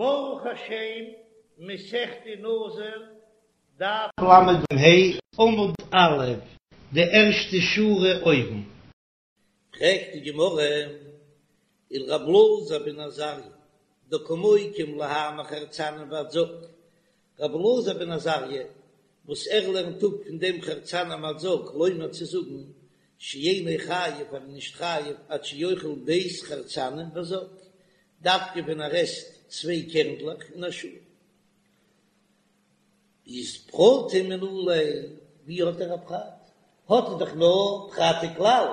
ברוך השם, מסכת נזיר, דף ל"ה, עמוד א', די ערשטע שורה אויבן. פרעגט די גמרא, ולר' אלעזר בן עזריה, דקא מוקים להאי מחרצנים ועד זג, ר' אלעזר בן עזריה וואס ער לערנט אפ פון דעם חרצנים ועד זג לומר צו זאגן שאינו חייב ער איז נישט חייב עד שיאכל ב' חרצנים וזג, דווקא ווען ער עסט צוויי קערנדלעך אין א שעה. איז פרטא מנא ליה, ווי האט ער א פרט? האט ער דאך נאר פרט וכלל,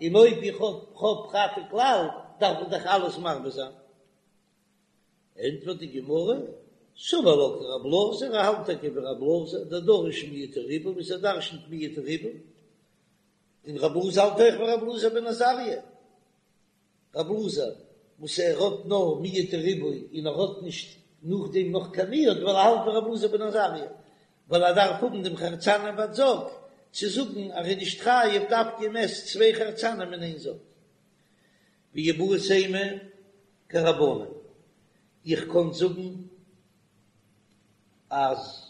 און אויב איך האב פרט וכלל דארף איך דאך אלעס מרבה זיין. ענטפערט די גמרא, סבר לה כרב אלעזר, ער האלט טאקע ווי רב אלעזר, דדריש מיעוט וריבוי, וואס ער דרשנ'ט מיעוט וריבוי, און רב אלעזר האלט אויך ווי רב אלעזר בן עזריה, רב אלעזר וואס ער האט נאר מיעוט וריבוי און ער האט נישט נאכדעם נאך קיין מיעוט ווייל ער האלט ווי רב אלעזר בן עזריה, ווייל ער דארף האבן דעם חרצנים ועד זג צו זאגן אז ער איז נישט חייב דווקא מען עסט צוויי חרצנים אין איין זג. ואיבעית אימא כרבנן, איך קען זאגן אז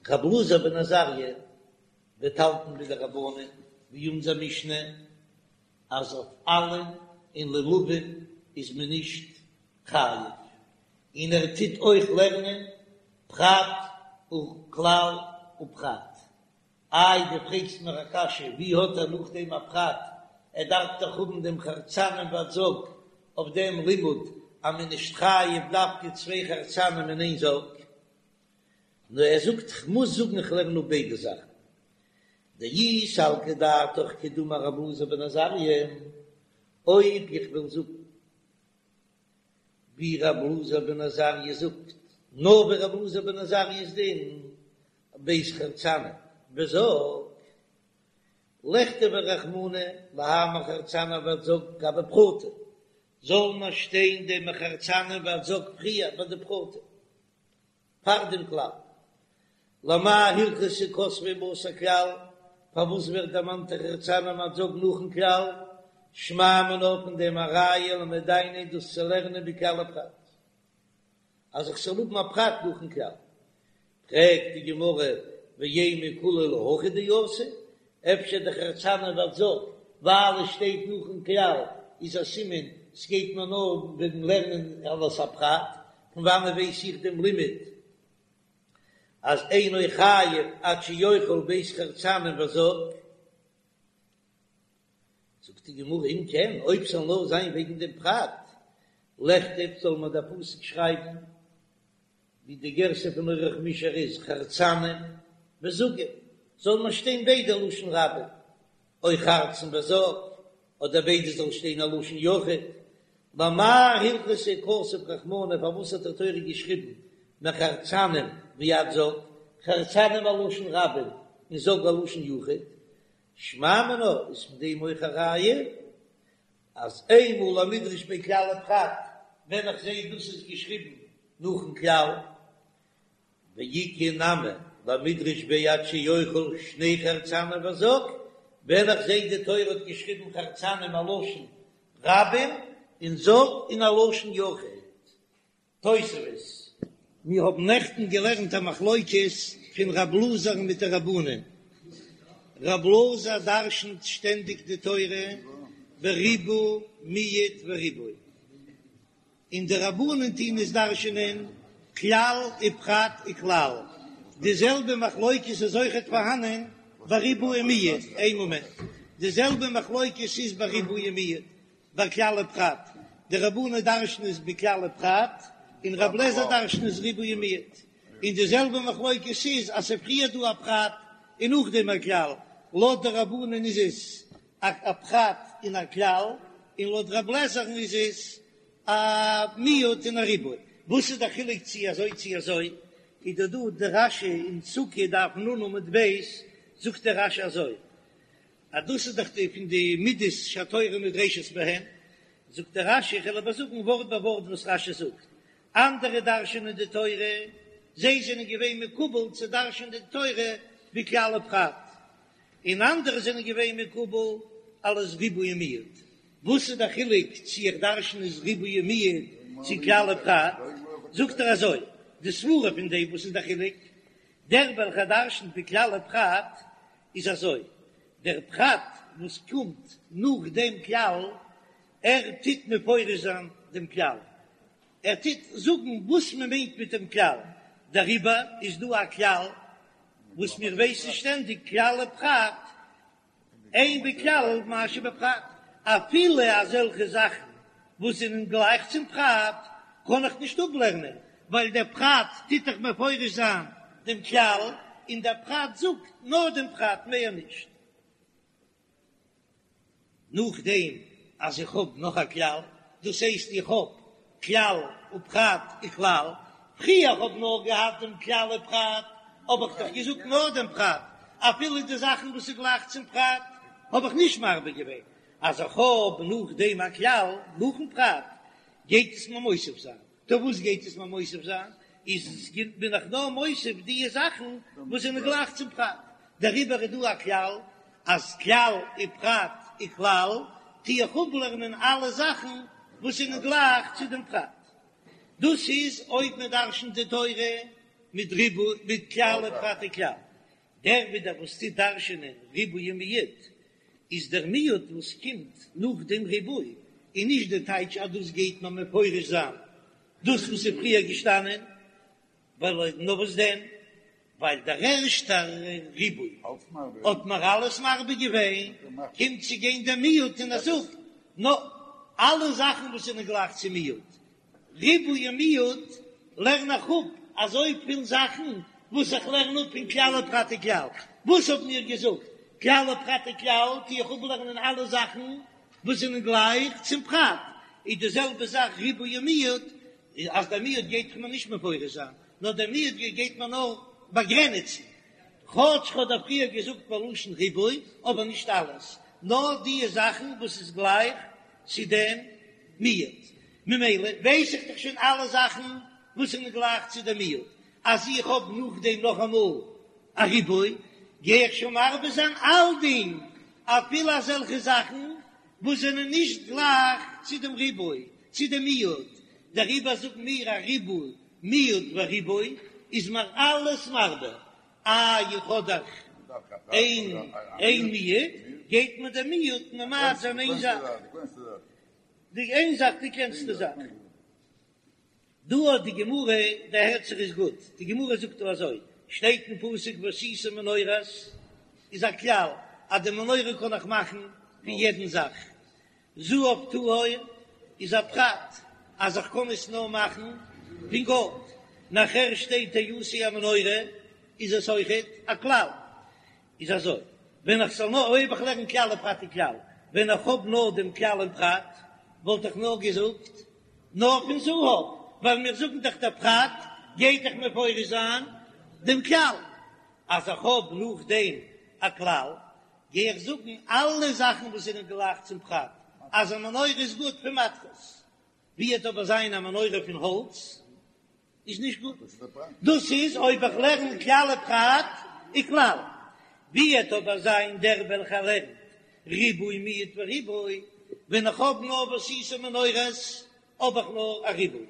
רב אלעזר בן עזריה וועט האלטן ווי די רבנן, ווי אונזער משנה, אז אויף עלים און לולבים איז מען נישט חייב, און ער טוט אויך לערנען פרט וכלל ופרט. איי דו פרעגסט מיר א קשיא, ווי האט ער נאכדעם א פרט, ער דארף דאך האבן דעם חרצנים ועד זג אויף דעם לימוד אז מען איז נישט חייב דווקא צוויי חרצנים אין איין זג, נאר ער זאגט כ'מוז זאגן כ'לערן אפ ביידע זאכן, דאי סלקא דעתך כדאמר רב אלעזר בן עזריה, אויב איך וועל זאגן ווי רב אלעזר בן עזריה זאגט, נאר ווי רב אלעזר בן עזריה'ס דין, ב' חרצנים וזג, לכתביה רחמנא להאי מחרצנים ועד זג גבי פרטא, זאל מען שטיין דעם מחרצנים ועד זג פריער ביי די פרטא פאר דעם כלל. למאי הלכתא כתביה בתר כלל, פארוואס ווערט דערמאנט די חרצנים ועד זג נאכן כלל? שמע מינה פון דעם א ראיה למדיניה דאס צו לערנען מכלל ופרט. אז איך זאל האבן א פרט נאכן כלל. פרעגט די גמרא ואימא כולהו להכי דאתא, אפשר די חרצנים ועד זג ווייל עס שטייט נאכן כלל איז א סימן ס'גייט מיר נאר וועגן לערנען אלס א פרט, פון וואנען ווייס איך דעם לימוד אז אינו חייב עד שיאכל ב' חרצנים וזג? זאגט די גמרא אם כן, אויב ס'זאל נאר זיין וועגן דעם פרט, לכתוב זאל מען דער פסוק שרייבן ווי די גירסא פון אורח מישר איז חרצנים וזגים, זאל מען שטיין ביידע לשון רבים, או חרצן וזג, אדער ביידע זאל שטיין א לשון יחיד, למאי הלכתא כתב רחמנא פארוואס האט די תורה געשריבן מחרצנים ועד זג, חרצנים א לשון רבים און זג א לשון יחיד, שמע מינה איז פון דעם אויך א ראיה אז איינמאל למידרש ביה כלל ופרט ווען איך זעה דאס איז געשריבן נאכן כלל, ואיכא נמי למידרש ביה עד שיאכל שני חרצנים וזג, ווען איך זעה די תורה האט געשריבן חרצנים א לשון רבים און זג אין א לשון יחיד. תוספות. מיר האבן נעכטן געלערנט א מחלוקת פון רב אלעזר'ן מיט די רבנן. רב אלעזר דרשנ'ט שטענדיג די תורה בריבוי מיעוט וריבוי, און די רבנן טוהן עס דרשנ'ען כלל ופרט וכלל. די זעלבע מחלוקת איז אויכעט פארהאנען ביי ריבוי און מיעוט. איין מאמענט. די זעלבע מחלוקת איז ביי ריבוי און מיעוט. ביי כלל ופרט, די רבנן דרש'ן עס בכלל ופרט, און רב לעזער דרש'ן עס ריבוי ומיעוט, און די זעלבע מחלוקת איז אז ס'איז פריער דא א פרט און נאכדעם א כלל, לויט די רבנן איז עס א פרט און א כלל, און לויט רב לעזער'ן איז עס א מיעוט און א ריבוי. וואס איז די חילוק צי אזוי צי אזוי? איז דא דא די רש"י אין סוכה דף נ עמוד ב' זאגט דער רש"י אזוי, אז דאס איז דאך די פון די מידות שהתורה נדרשת בהן, זאגט דער רש"י, איך וועל אבער זאגן ווארט ביי ווארט וואס רש"י זאגט, אנדערע דרש'ענען די תורה, זיי זענען געווען מקובל צו דרש'ענען די תורה בכלל ופרט, און אנדערע זענען געווען מקובל אלס ריבוי ומיעוט, וואס איז דער חילוק צו איך דרש'ן עס ריבוי ומיעוט? צו כלל ופרט, זאגט ער אזוי, די סברה פון דעם וואס איז דער חילוק, דער וועלכער דרשנ'ט בכלל ופרט איז אזוי, דער פרט וואס קומט נאך דעם כלל, ער טוט מפרש זיין דעם כלל, ער טוט זאגן וואס מען מיינט מיט דעם כלל, דעריבער איז דא א כלל וואס מיר ווייסן שטענדיג כלל ופרט, אין בכלל מה שבפרט, אפילו אזעלכע זאכן וואס זענען גלייך צום פרט קען איך נישט אפלערנען, ווייל דער פרט טוט דאך מפרש זיין דעם כלל, און דער פרט זאגט נאר דעם פרט מער נישט. נאכדעם אז איך האב נאך א כלל, דאס הייסט איך האב כלל ופרט וכלל, פריער האב נאר געהאט דעם כלל ופרט, האב איך דאך געזאגט נאר דעם פרט, אפילו די זאכן וואס איז גלייך צום פרט האב איך נישט מרבה געווען, אז איך האב נאכדעם א כלל נאכן פרט גייט עס מיר מוסיף זיין, טא וואס גייט עס מיר מוסיף זיין? איז בין איך נאר מוסיף די זאכן וואס זענען גלייך צום פרט, דעריבער איז דא א כלל אז כלל ופרט וכלל טו איך אפלערנען אלע זאכן וואס זענען גלייך צו דעם פרט. דאס איז אויב מען דרשנ'ט די תורה מיט ריבוי מיט כלל ופרט וכלל. דער ווידער וואס טוט דרשנ'ען ריבוי ומיעוט איז דער מיעוט וואס קומט נאך דעם ריבוי, און נישט די טייטש אז דאס גייט מען מפרש זיין דאס וואס איז פריער געשטאנען, ווייל נאר וואס דען, ווייל דער ערשטער ריבוי האט מיר אלעס מרבה געווען, קומט צו גיין דער מיעוט און ער זאגט נאר אלע זאכן וואס זענען גלייך צו מיעוט, ריבוי און מיעוט לערן איך אפ אזויפיל זאכן וואס איך לערן אפ פון כלל ופרט וכלל. וואס האבן מיר געזאגט? כלל ופרט וכלל טו איך אפלערנען אלע זאכן וואס זענען גלייך צום פרט, איז די זעלבע זאך ריבוי און מיעוט, אז דער מיעוט גייט מיר נישט מפרש זיין, נאר דער מיעוט גייט מיר נאר באגרעניצן, כאטש כ'האב דא פריער געזאגט בלשון ריבוי, אבער נישט אלעס, נאר די זאכן וואס איז גלייך צו דעם מיעוט, ממילא ווייס איך דאך שוין אלע זאכן וואס זענען גלייך צו דעם מיעוט, אז איך האב נאכדעם נאכאמאל א ריבוי, גיי איך שוין מרבה זיין אלדינג, אפילו אזעלכע זאכן וואס זענען נישט גלייך צו דעם ריבוי, צו דעם מיעוט, דעריבער זאגן מיר א ריבוי, מיעוט וריבוי איז מיר אלעס מרבה, איי איך האב דאך איין איין מיעוט, גייט מיר דער מיעוט ממעט זיין איין זאך, די איין זאך די קלענסטע זאך. דא האט די גמרא, דער הערט זיך איז גוט, די גמרא זאגט דא אזוי, שטייט אין פסוק ועשית מנורת, איז א כלל אז די מנורה קען איך מאכן פון יעדן זאך, זהב טהור איז א פרט אז איך קען עס נאר מאכן פון גאלד, נאכער שטייט תעשה המנורה איז עס אויכעט א כלל, איז אזוי, ווען איך זאל נאר, אויב איך לערן כלל ופרט וכלל, ווען איך האב נאר דעם כלל און פרט, וואלט איך נאר געזאגט נאר פון זהב, ווייל מיר זאגן דאך דער פרט גייט דאך מפרש זיין דעם כלל, אז איך האב נאכדעם א כלל, גיי איך זאגן אלע זאכן וואס זענען גלייך צום פרט, אז א מנורה איז גוט פון מתכות, ווי וועט אבער זיין א מנורה פון האלץ איז נישט גוט, דאס איז אויב איך לערן כלל ופרט וכלל, ווי וועט אבער זיין דער וועלכער לערנט ריבוי מיעוט וריבוי, ווען איך האב נאר ועשית מנורת האב איך נאר א ריבוי,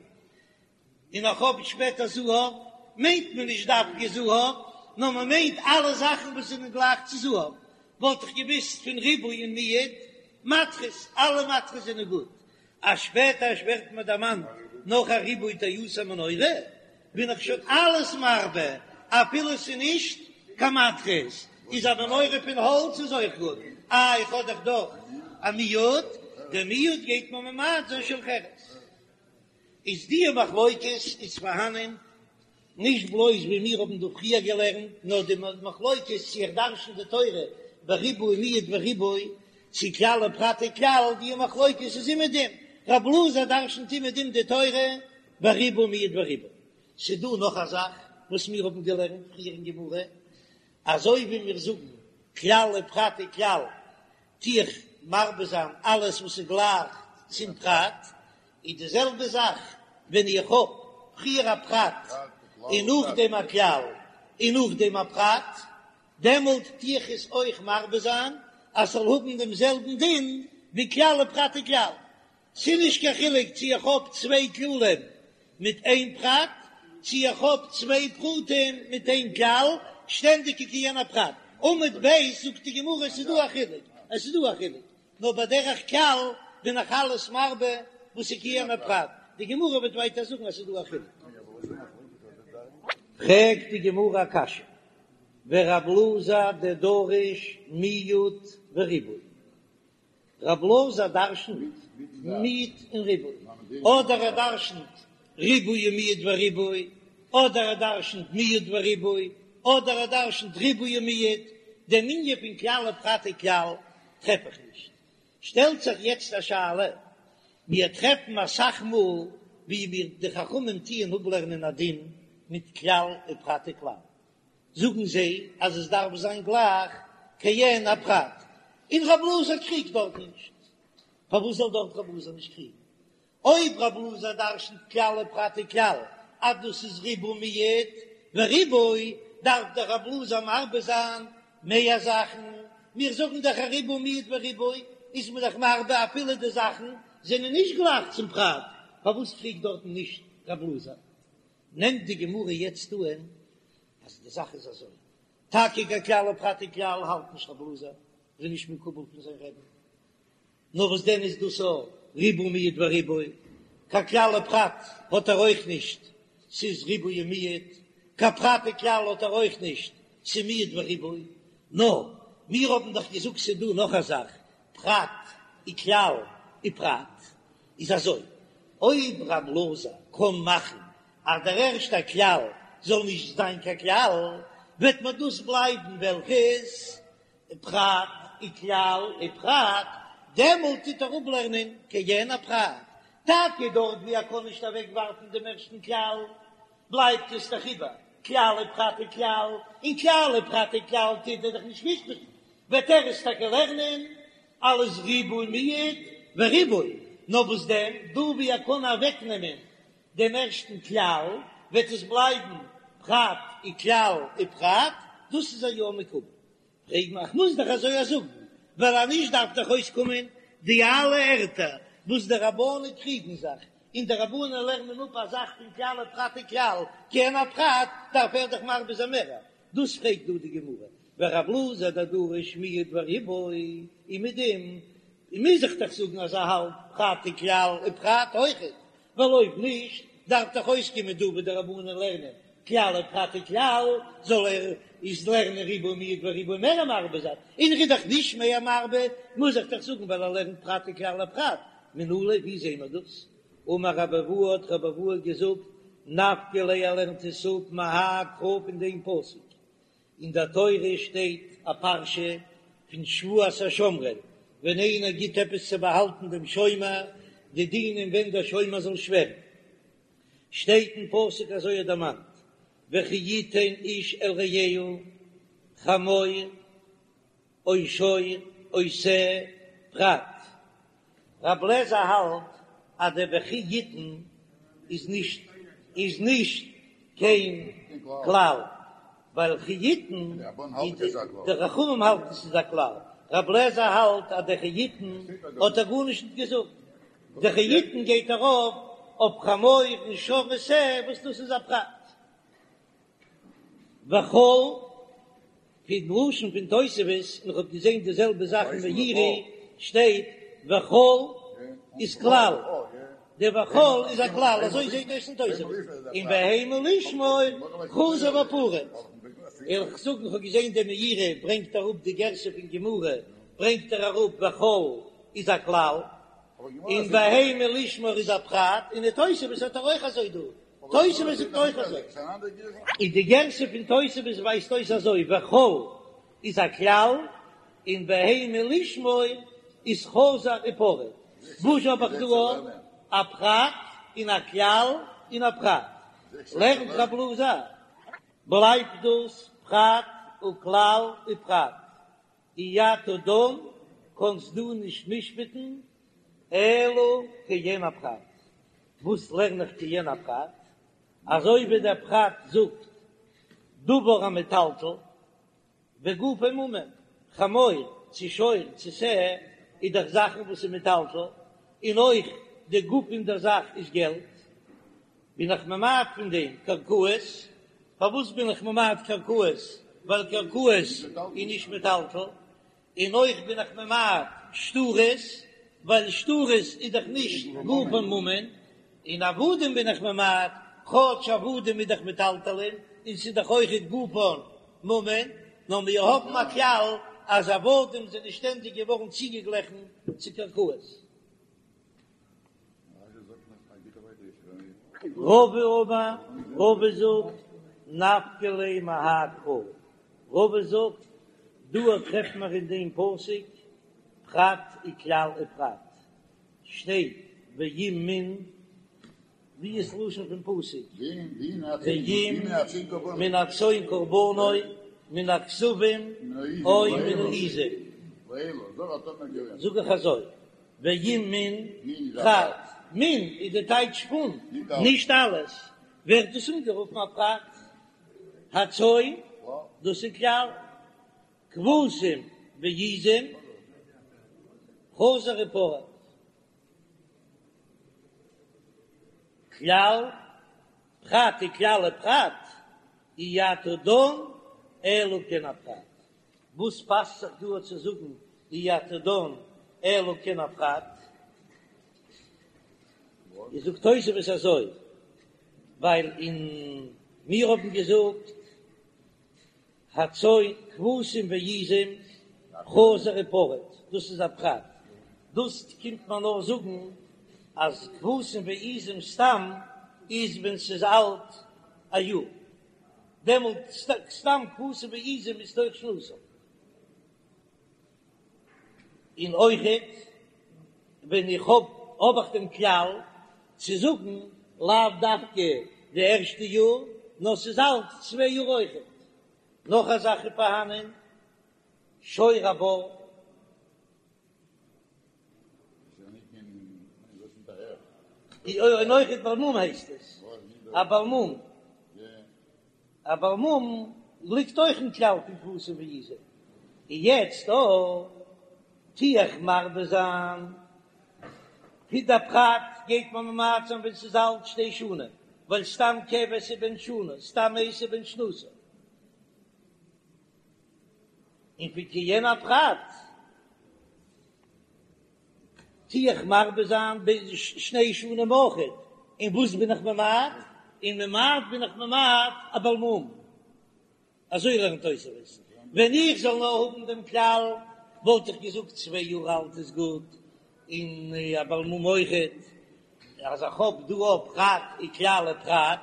און איך האב שפעטער זהב, מיינט מען נישט דווקא זהב, נאר מען מיינט אלע זאכן וואס זענען גלייך צו זהב, וואלט איך געוואוסט פון ריבוי און מיעוט, מתכות, אלע מתכות זענען גוט, אז שפעטער ווערט מיר דערמאנט נאך א ריבוי תעשה מנורה, בין איך שוין אלעס מרבה, אפילו ס'איז נישט קיין מתכות, איז א מנורה פון האלץ איז אויך גוט, איי איך האב דאך דאך א מיעוט, דער מיעוט גייט מיר ממעט זיין של חרס. איז די מחלוקת איז פארהאנען נישט בלויז ווי מיר האבן דא פריער געלערנט, נאר די מחלוקת צו איך דרשן די תורה בריבוי מיעוט וריבוי, צו כלל ופרט וכלל, די מחלוקת איז אומעדום, רב אלעזר דרשנט אומעדום די תורה בריבוי מיעוט וריבוי. ס'דא נאך א זאך וואס מיר האבן געלערנט פריער אין גמרא, אזוי ווי מיר זאגן כלל ופרט וכלל, טו איך מרבה זיין אלעס וואס איז גלייך צום פרט, איז די זעלבע זאך ווען איך האב פריער א פרט און נאכדעם א כלל און נאכדעם א פרט, דעמאלט טו איך עס אויך מרבה זיין אז ס'זאל האבן דעם זעלבן דין ווי כלל ופרט וכלל. ס'איז נישט קיין חילוק צו איך האב צוויי כללים מיט איין פרט, צו איך האב צוויי פרטים מיט איין כלל, שטענדיג איז כעין הפרט. עמוד ב' זאגט די גמרא עס איז דא א חילוק, עס איז דא א חילוק, נאר בדרך כלל בין איך אלעס מרבה וואס איז כעין הפרט, די גמרא וועט ווייטער זאגן אז ס'איז דא א חילוק. פרעגט די גמרא א קשיא, ורב אלעזר דדריש מיעוט וריבוי, רב אלעזר דרשנ'ט מיעוט און ריבוי, אדער ער דרשנ'ט ריבוי ומיעוט וריבוי, אדער ער דרשנ'ט מיעוט וריבוי, אדער ער דרשנ'ט ריבוי ומיעוט, דעם ענין פון כלל ופרט וכלל טרעף איך נישט. שטעלט זיך יעצט א שאלה, מיר טרעפן אסאך מאל ווי מיר די חכמים טוען אפלערנען א דין מיט כלל ופרט וכלל, זאגן זיי אז עס דארף זיין גלייך כעין הפרט, און רב אלעזר קריגט דארט נישט, פארוואס זאל דארט רב אלעזר נישט קריגן? אויב רב אלעזר דרשנ'ט כלל ופרט וכלל אז דאס איז ריבוי מיעוט וריבוי, דארף דאך רב אלעזר מרבה זיין מער זאכן, מיר זאגן דאך אז ריבוי מיעוט וריבוי איז מען דאך מרבה אפילו די זאכן זענען נישט גלייך צום פרט, פארוואס קריגט דארטן נישט רב אלעזר? נעמט די גמרא יעצט אן אז די זאך איז אזוי, טאקע קיין כלל ופרט וכלל האלט נישט רב אלעזר, איז נישט מקובל פון זיין רבי'ן, נאר וואס דען איז דאס א ריבוי מיעוט וריבוי, קיין כלל ופרט האט ער אויך נישט, ס'איז ריבוי ומיעוט, קיין פרט וכלל האט ער אויך נישט, ס'איז מיעוט וריבוי, נאר מיר האבן דאך געזאגט ס'איז דא נאך א זאך, פרט וכלל ופרט, איז אזוי, אויב רב אלעזר קען מאכן אז דער ערשטער כלל זאל נישט זיין קיין כלל, וועט מען דאס בלייבן וועלכעס פרט וכלל ופרט, דעמאלט טוט ער אפלערנען כעין הפרט, טאקע דארט ווי ער קען נישט אוועקווארפן דעם ערשטן כלל, בלייבט עס דאך איבער כלל ופרט וכלל, און כלל ופרט וכלל טוט ער דאך נישט משפט'ן, וועט ער עס טאקע לערנען אלס ריבוי מיעוט וריבוי, נאר וואס דען, דא ווי ער קען אוועקנעמען דעם ערשטן כלל, וועט עס בלייבן פרט וכלל ופרט, דאס איז ער יא מקובל. פרעג איך מוז דאך אזוי זאגן, ווייל אז נישט דארף דאך אויסקומען די אלע ערטער וואס די רבנן קריגן זיך, און די רבנן לערנען אפ א זאך פון כלל ופרט וכלל, כעין הפרט, דארף ער דאך מרבה זיין מערער. דאס פרעגט דא די גמרא, ורב אלעזר דדריש מיעוט וריבוי, און מיט דעם מוז איך דאך זאגן אז ער האלט פרט וכלל ופרט אויכעט, ווייל אויב נישט דארף דאך אויסקומען דא ווי די רבנן לערנען כלל ופרט וכלל, זאל ער איז לערנען ריבוי מיעוט וריבוי מער מרבה זיין, און ער איז דאך נישט מער מרבה, מוז איך דאך זאגן ווייל ער לערנט פרט וכלל ופרט, מנא ליה ווי זעהן מיר דאס? אמר רבי אבהו האט רבי אבהו געזאגט, נפקא ליה ער לערנט עס אפ מהאי קרא פון דעם פסוק, אין דער תורה שטייט א פרשה פון שבועת השומרים, ווען איינער גיט עפעס צו באהאלטן דעם שומר, די דינים ווען דער שומר זאל שווערן, שטייט אין פסוק אזוי ער דערמאנט, וכי יתן איש אל רעהו חמור או שור או שה פרט. רב לעזער האלט אז דער וכי יתן איז נישט איז נישט קיין כלל, ווייל וכי יתן די חכמים האלטן ס'איז א כלל, רב לעזער האלט אז דער וכי יתן האט ער גארנישט נישט געזאגט, דער וכי יתן גייט ארויף אויף חמור און שור ושה וואס דאס איז א פרט. וכל, פון לשון פון תוספות, און איך האב געזען די זעלבע זאך אין מאירי, שטייט וכל איז כלל, די וכל איז א כלל, אזוי זעט אויס אין תוספות, און בהמה לשמור חזר ופרט. איך זאג, איך האב געזען די מאירי ברענגט אראפ די גירסא פון גמרא, ברענגט ער אראפ וכל איז א כלל, און בהמה לשמור איז א פרט, און די תוספות האט ער אויך אזוי דא. תוספות זאגט אויך אזוי. און די גירסא פון תוספות ווייזט אויס אזוי, וכל איז א כלל, און בהמה לשמור איז חזר ופרט. וואס האב איך דא? א פרט און א כלל און א פרט. לערנט רב אלעזר, בלייבט דאס פרט וכלל ופרט. אי אתה דן, קאנסט דו נישט משפט'ן אלא כעין הפרט. וואס לערן איך כעין הפרט? אזוי ווי דער פרט זאגט דבר המטלטל וגופו ממון, חמור צו שור צו שה איז דאך זאכן וואס איז מטלטל. און אויך די גוף פון דער זאך איז געלט, בין איך ממעט פון דעם קרקעות, פארוואס בין איך ממעט קרקעות? ווייל קרקעות איז נישט מטלטל, און אויך בין איך ממעט שטרות, ווייל שטרות איז דאך נישט גופן ממון, און עבדים בין איך ממעט, כאטש עבדים איז דאך מטלטלין, און ס'איז דאך אויכעט גופן ממון, נאר מיר האבן א כלל אז עבדים זענען שטענדיג געווארן צוגעגליכן צו קרקעות. רבא אמר, רבא זאגט, נפקא ליה מהאי קרא, רבא זאגט, דא טרעפט מען אין דעם פסוק פרט וכלל ופרט, שטייט ואם מן, ווי איז לשון פון פסוק? ואם מן הצאן קרבנו מן הכשבים או מן העזים, זאג איך אזוי, ואם מן פרט, מן איז די טייטש פון, נישט אלעס, ווערט דאס אנגערופן א פרט, הצאן, דאס איז כלל, כבשים ועזים, חזר ופרט. כלל, פרט וכלל ופרט, אי אתה דן אלא כעין הפרט. וואס פאסט זיך דא צו זאגן אי אתה דן אלא כעין הפרט? איז זאגט תוספות אזוי, ווייל אין מיר האבן געזאגט הצאן כבשים ועזים חזר ופרט, דאס איז א פרט, דאס קומט מען נאר זאגן אז כבשים ועזים סתם איז ווען ס'איז אלט א יאר, דעמאלט סתם כבשים ועזים איז תוך שנתם. און אויכעט ווען איך האב האב איך דעם כלל צו זאגן לאו דווקא די ערשטע יאר נאר ס'איז אלט צוויי יאר אויכעט. נאך א זאך איז פארהאנען שור הבר. און אויכעט בעל מום הייסט עס א בעל מום. א בעל מום ליגט אויך אין כלל פון כבשים ועזים, און יעצט דא טו איך מרבה זיין, פון די פרט גייט מען ממעט זיין ווען ס'איז אלט שתי שנים, ווייל סתם כבש איז בן שנה, סתם אייז איז בן שנתו, און פון כעין הפרט. טו איך מרבה זיין ביז שני שנים אויכעט, און וואס בין איך ממעט? און ממעט בין איך ממעט א בעל מום. אזוי לערנט תוספות. ווען איך זאל נאר האבן דעם כלל וואלט איך געזאגט צוויי יאר אלט איז גוט, און א בעל מום אויכעט. אז איך האב דא א פרט וכלל ופרט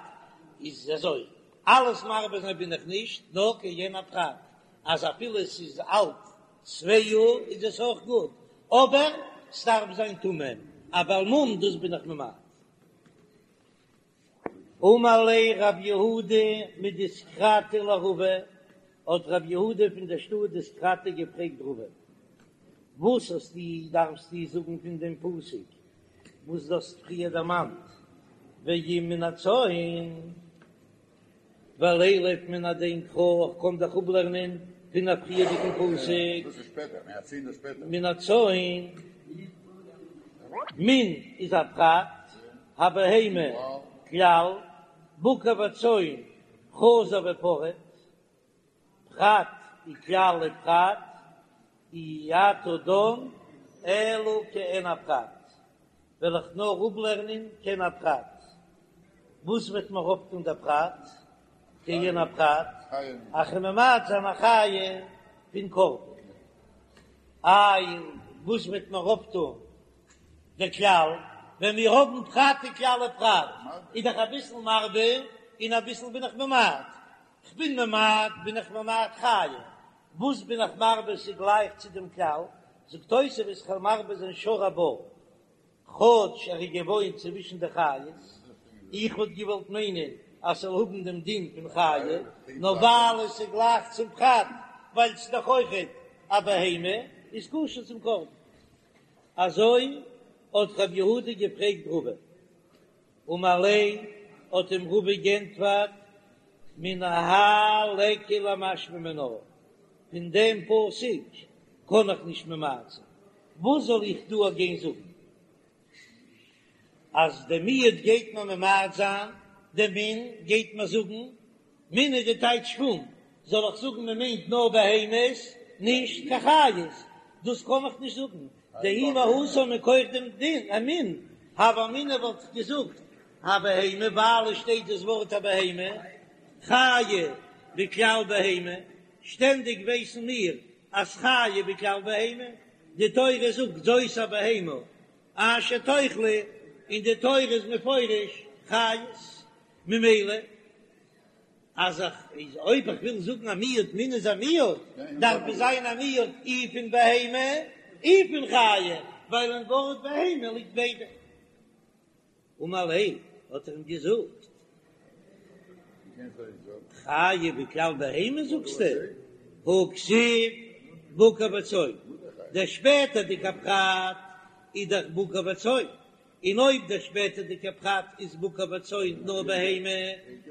איז אזוי, אלעס מרבה זיין בין איך נישט, נאר כעין הפרט, אז אפילו עס איז אלט צוויי יאר איז עס אויך גוט, אבער ס'דארף זיין תמים, א בעל מום דאס בין איך ממעט. אמר ליה רב יהודה מדיסקרתא לרבא, האט רב יהודה פון דער שטאט דיסקרתא געפרעגט רבא, וואס האסטו דארפסטו זאגן פון דעם פסוק וואס דו האסט פריער דערמאנט, ואם מן הצאן? ולילף מן הדין קרא, איך קען דאך אפלערנען פון א פריערדיגן פסוק, מן הצאן, מן איז א פרט, הבהמה כלל, בקר וצאן חזר ופרט, פרט וכלל ופרט, אי אתה דן אלא כעין הפרט, וועל איך נאר אפלערנען כעין הפרט, וואס וועט מיר אויפטון דער פרט? כעין הפרט, אז כ'וועל ממעט זיין א חיה פון קרבן, איי וואס וועט מיר אויפטון דער כלל, ווען מיר האבן פרט וכלל ופרט, איז דאך אביסל מרבה און אביסל בין איך ממעט, כ'בין ממעט בין איך ממעט חיה, וואס בין איך מרבה ס'גלייך צו דעם כלל, זאגט תוספות כ'וועל מרבה זיין שור הבר, כאטש ער איז געוואוינט צווישן די חיות, איך וואלט געוואלט מיינען אז ס'זאל האבן דעם דין פון חיה, נאר ווייל עס איז גלייך צום פרט, ווייל ס'איז דאך אויכעט א בהמה, איז כשר צום קרבן. אזוי האט רב יהודה געפרעגט רבא. אמר ליה, האט אים רבא גענטפערט, מן האי ליכא למשמע מינה, פון דעם פסוק קען איך נישט ממעט זיין, וואס זאל איך דא גיין זאגן? אז די מיעוט גייט מען ממעט זיין, די מין גייט מען זאגן, מין איז די טייטש פון, זאל איך זאגן מען מיינט נאר בהמות, נישט קיין חיות, דאס קען איך נישט זאגן, דאי מהתם מכח דעם דין, א מין, הוה אמינא וואלט איך געזאגט, הבהמה, ווייל עס שטייט דאס ווארט הבהמה, חיה בכלל בהמה, שטענדיג ווייסן מיר אז חיה בכלל בהמה, די תורה זאגט זאת הבהמה אשר תאכלו, און די תורה איז מפרש חיות, ממילא אז איך איז אויב איך וויל זאגן א מיעוט מין איז א מיעוט, דארף עס זיין א מיעוט אי פון בהמה אי פון חיה, ווייל אין ווארט בהמה ליגט ביידע. אמר ליה, האט ער אים געזאגט, חיה בכלל בהמה זאגסטו? הא כתיב בקר וצאן, דער שפעטערדיגער פרט איז דאך בקר וצאן, און אויב דער שפעטערדיגער פרט איז בקר וצאן נאר בהמה,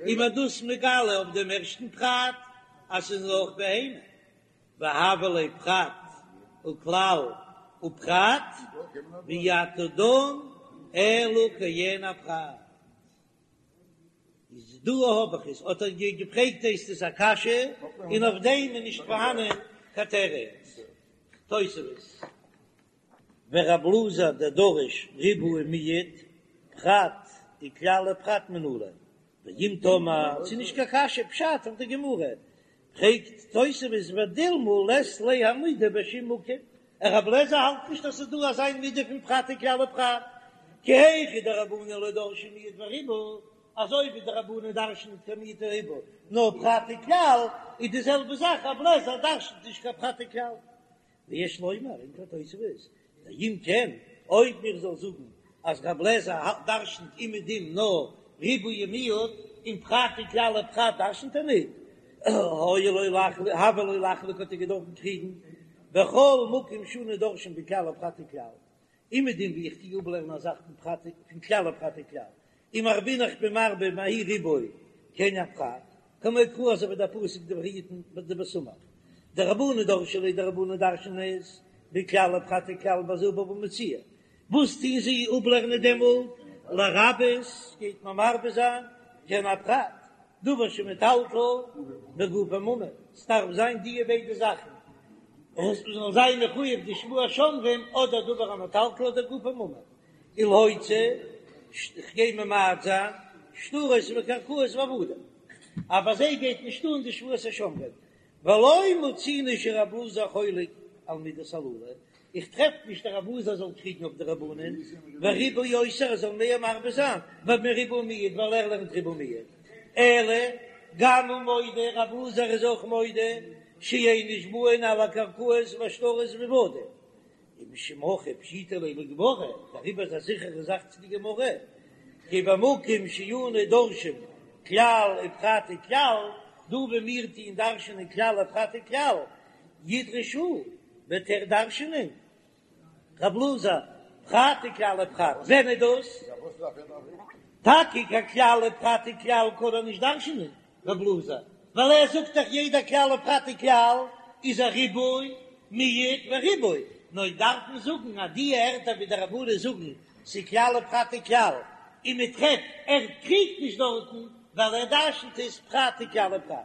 איז מען דאס מגלה אויף דעם ערשטן פרט אז ס'איז נאר בהמה. והוה ליה פרט וכלל ופרט, ואי אתה דן אלא כעין הפרט. איז דא האב איך עס, האט ער געפרעגט הייסט עס א קשיא, און אויף דעם איז נישט פארהאנען קיין תירוץ. תוספות. ורב אלעזר דדריש ריבוי ומיעוט, פרט וכלל ופרט מנלן, ואם תאמר, ס'איז נישט קיין קשיא, פשט אויף די גמרא, פרעגט תוספות ודילמא לית ליה המידה בשום מקום, רב אלעזר האלט נישט אז ס'איז דא אזא מידה פון פרט וכלל ופרט, כי היכי דרבנן לא דרשי מיעוט וריבוי, אזוי ווי די רבנן דרש'נען נישט קיין מיעוט וריבוי, נאר פרט וכלל, איז די זעלבע זאך רב אלעזר דרש'נט נישט קיין פרט וכלל. ויש לומר, ענטפערט תוספות, דאם כן, אויב מיר זאל זאגן אז רב לעזער דרשנ'ט אומעדום נאר ריבוי ומיעוט, און פרט וכלל ופרט דרשנ'ט ער ניט, היה לו לחלוק, הוה לו לחלוק האט ער געדארפן קריגן, בכל מקום שאנו דורשין בכלל ופרט וכלל, אומעדום ווי איך טוה אפלערנען א זאך פון פרט פון כלל ופרט וכלל, ומרבינן איך בין מרבה מהאי ריבוי כעין הפרט, כמו קרא אזוי ווי דער פסוק דבריתן דבסמך דרבנן דרשי ליה די רבנן דרש'נען עס בכלל ופרט וכלל בזה בבא מציעא, וואס טוהן זיי אפלערנען דעמאלט לרבות גייט מען מרבה זיין כעין הפרט דבר שמטלטל וגופו ממון, ס'דארף זיין דיע ביידע זאכן עס זאל זיין מחויב די שבועת שומרים אדער דבר המטלטל אדער גופו ממון. ולהוציא, כ'גיי ממעט זיין, שטרות וקרקעות ועבדים, אבער זיי גייט נישט אן די שבועת השומרים, ולא מצינו שרב אלעזר חולק על מידות הללו, איך טרעף נישט אז רב אלעזר זאל קריגן אויף די רבנן, וריבוי יותר ער זאל מער מרבה זיין, מריבוי ומיעוט ווייל ער לערנט ריבוי ומיעוט, אלא גם הוא מודה, רב אלעזר איז אויך מודה, שאין נשבעין על הקרקעות והשטרות ועבדים, ומשום הכי פשיטא ליה לגמרא, דעריבער איז א זיכערע זאך צו די גמרא, כי במקום שאנו דורשין כלל ופרט וכלל, דא ווי מיר טוען דרש'נען כלל ופרט וכלל, ידרוש הוא, וועט ער דרש'נען, רב אלעזר, פרט וכלל ופרט, ווען איז דאס? טאקע קיין כלל ופרט וכלל קען ער נישט דרש'נען, רב אלעזר, ווייל ער זאגט דאך יעדע כלל ופרט וכלל איז א ריבוי, מיעוט וריבוי, נאר דארף מען זאגן אז די ערטער ווי די רבנן זאגן ס'איז כלל ופרט וכלל, און מען טרעפט ער קריגט נישט דארטן ווייל ער דרש'נט עס פרט וכלל ופרט.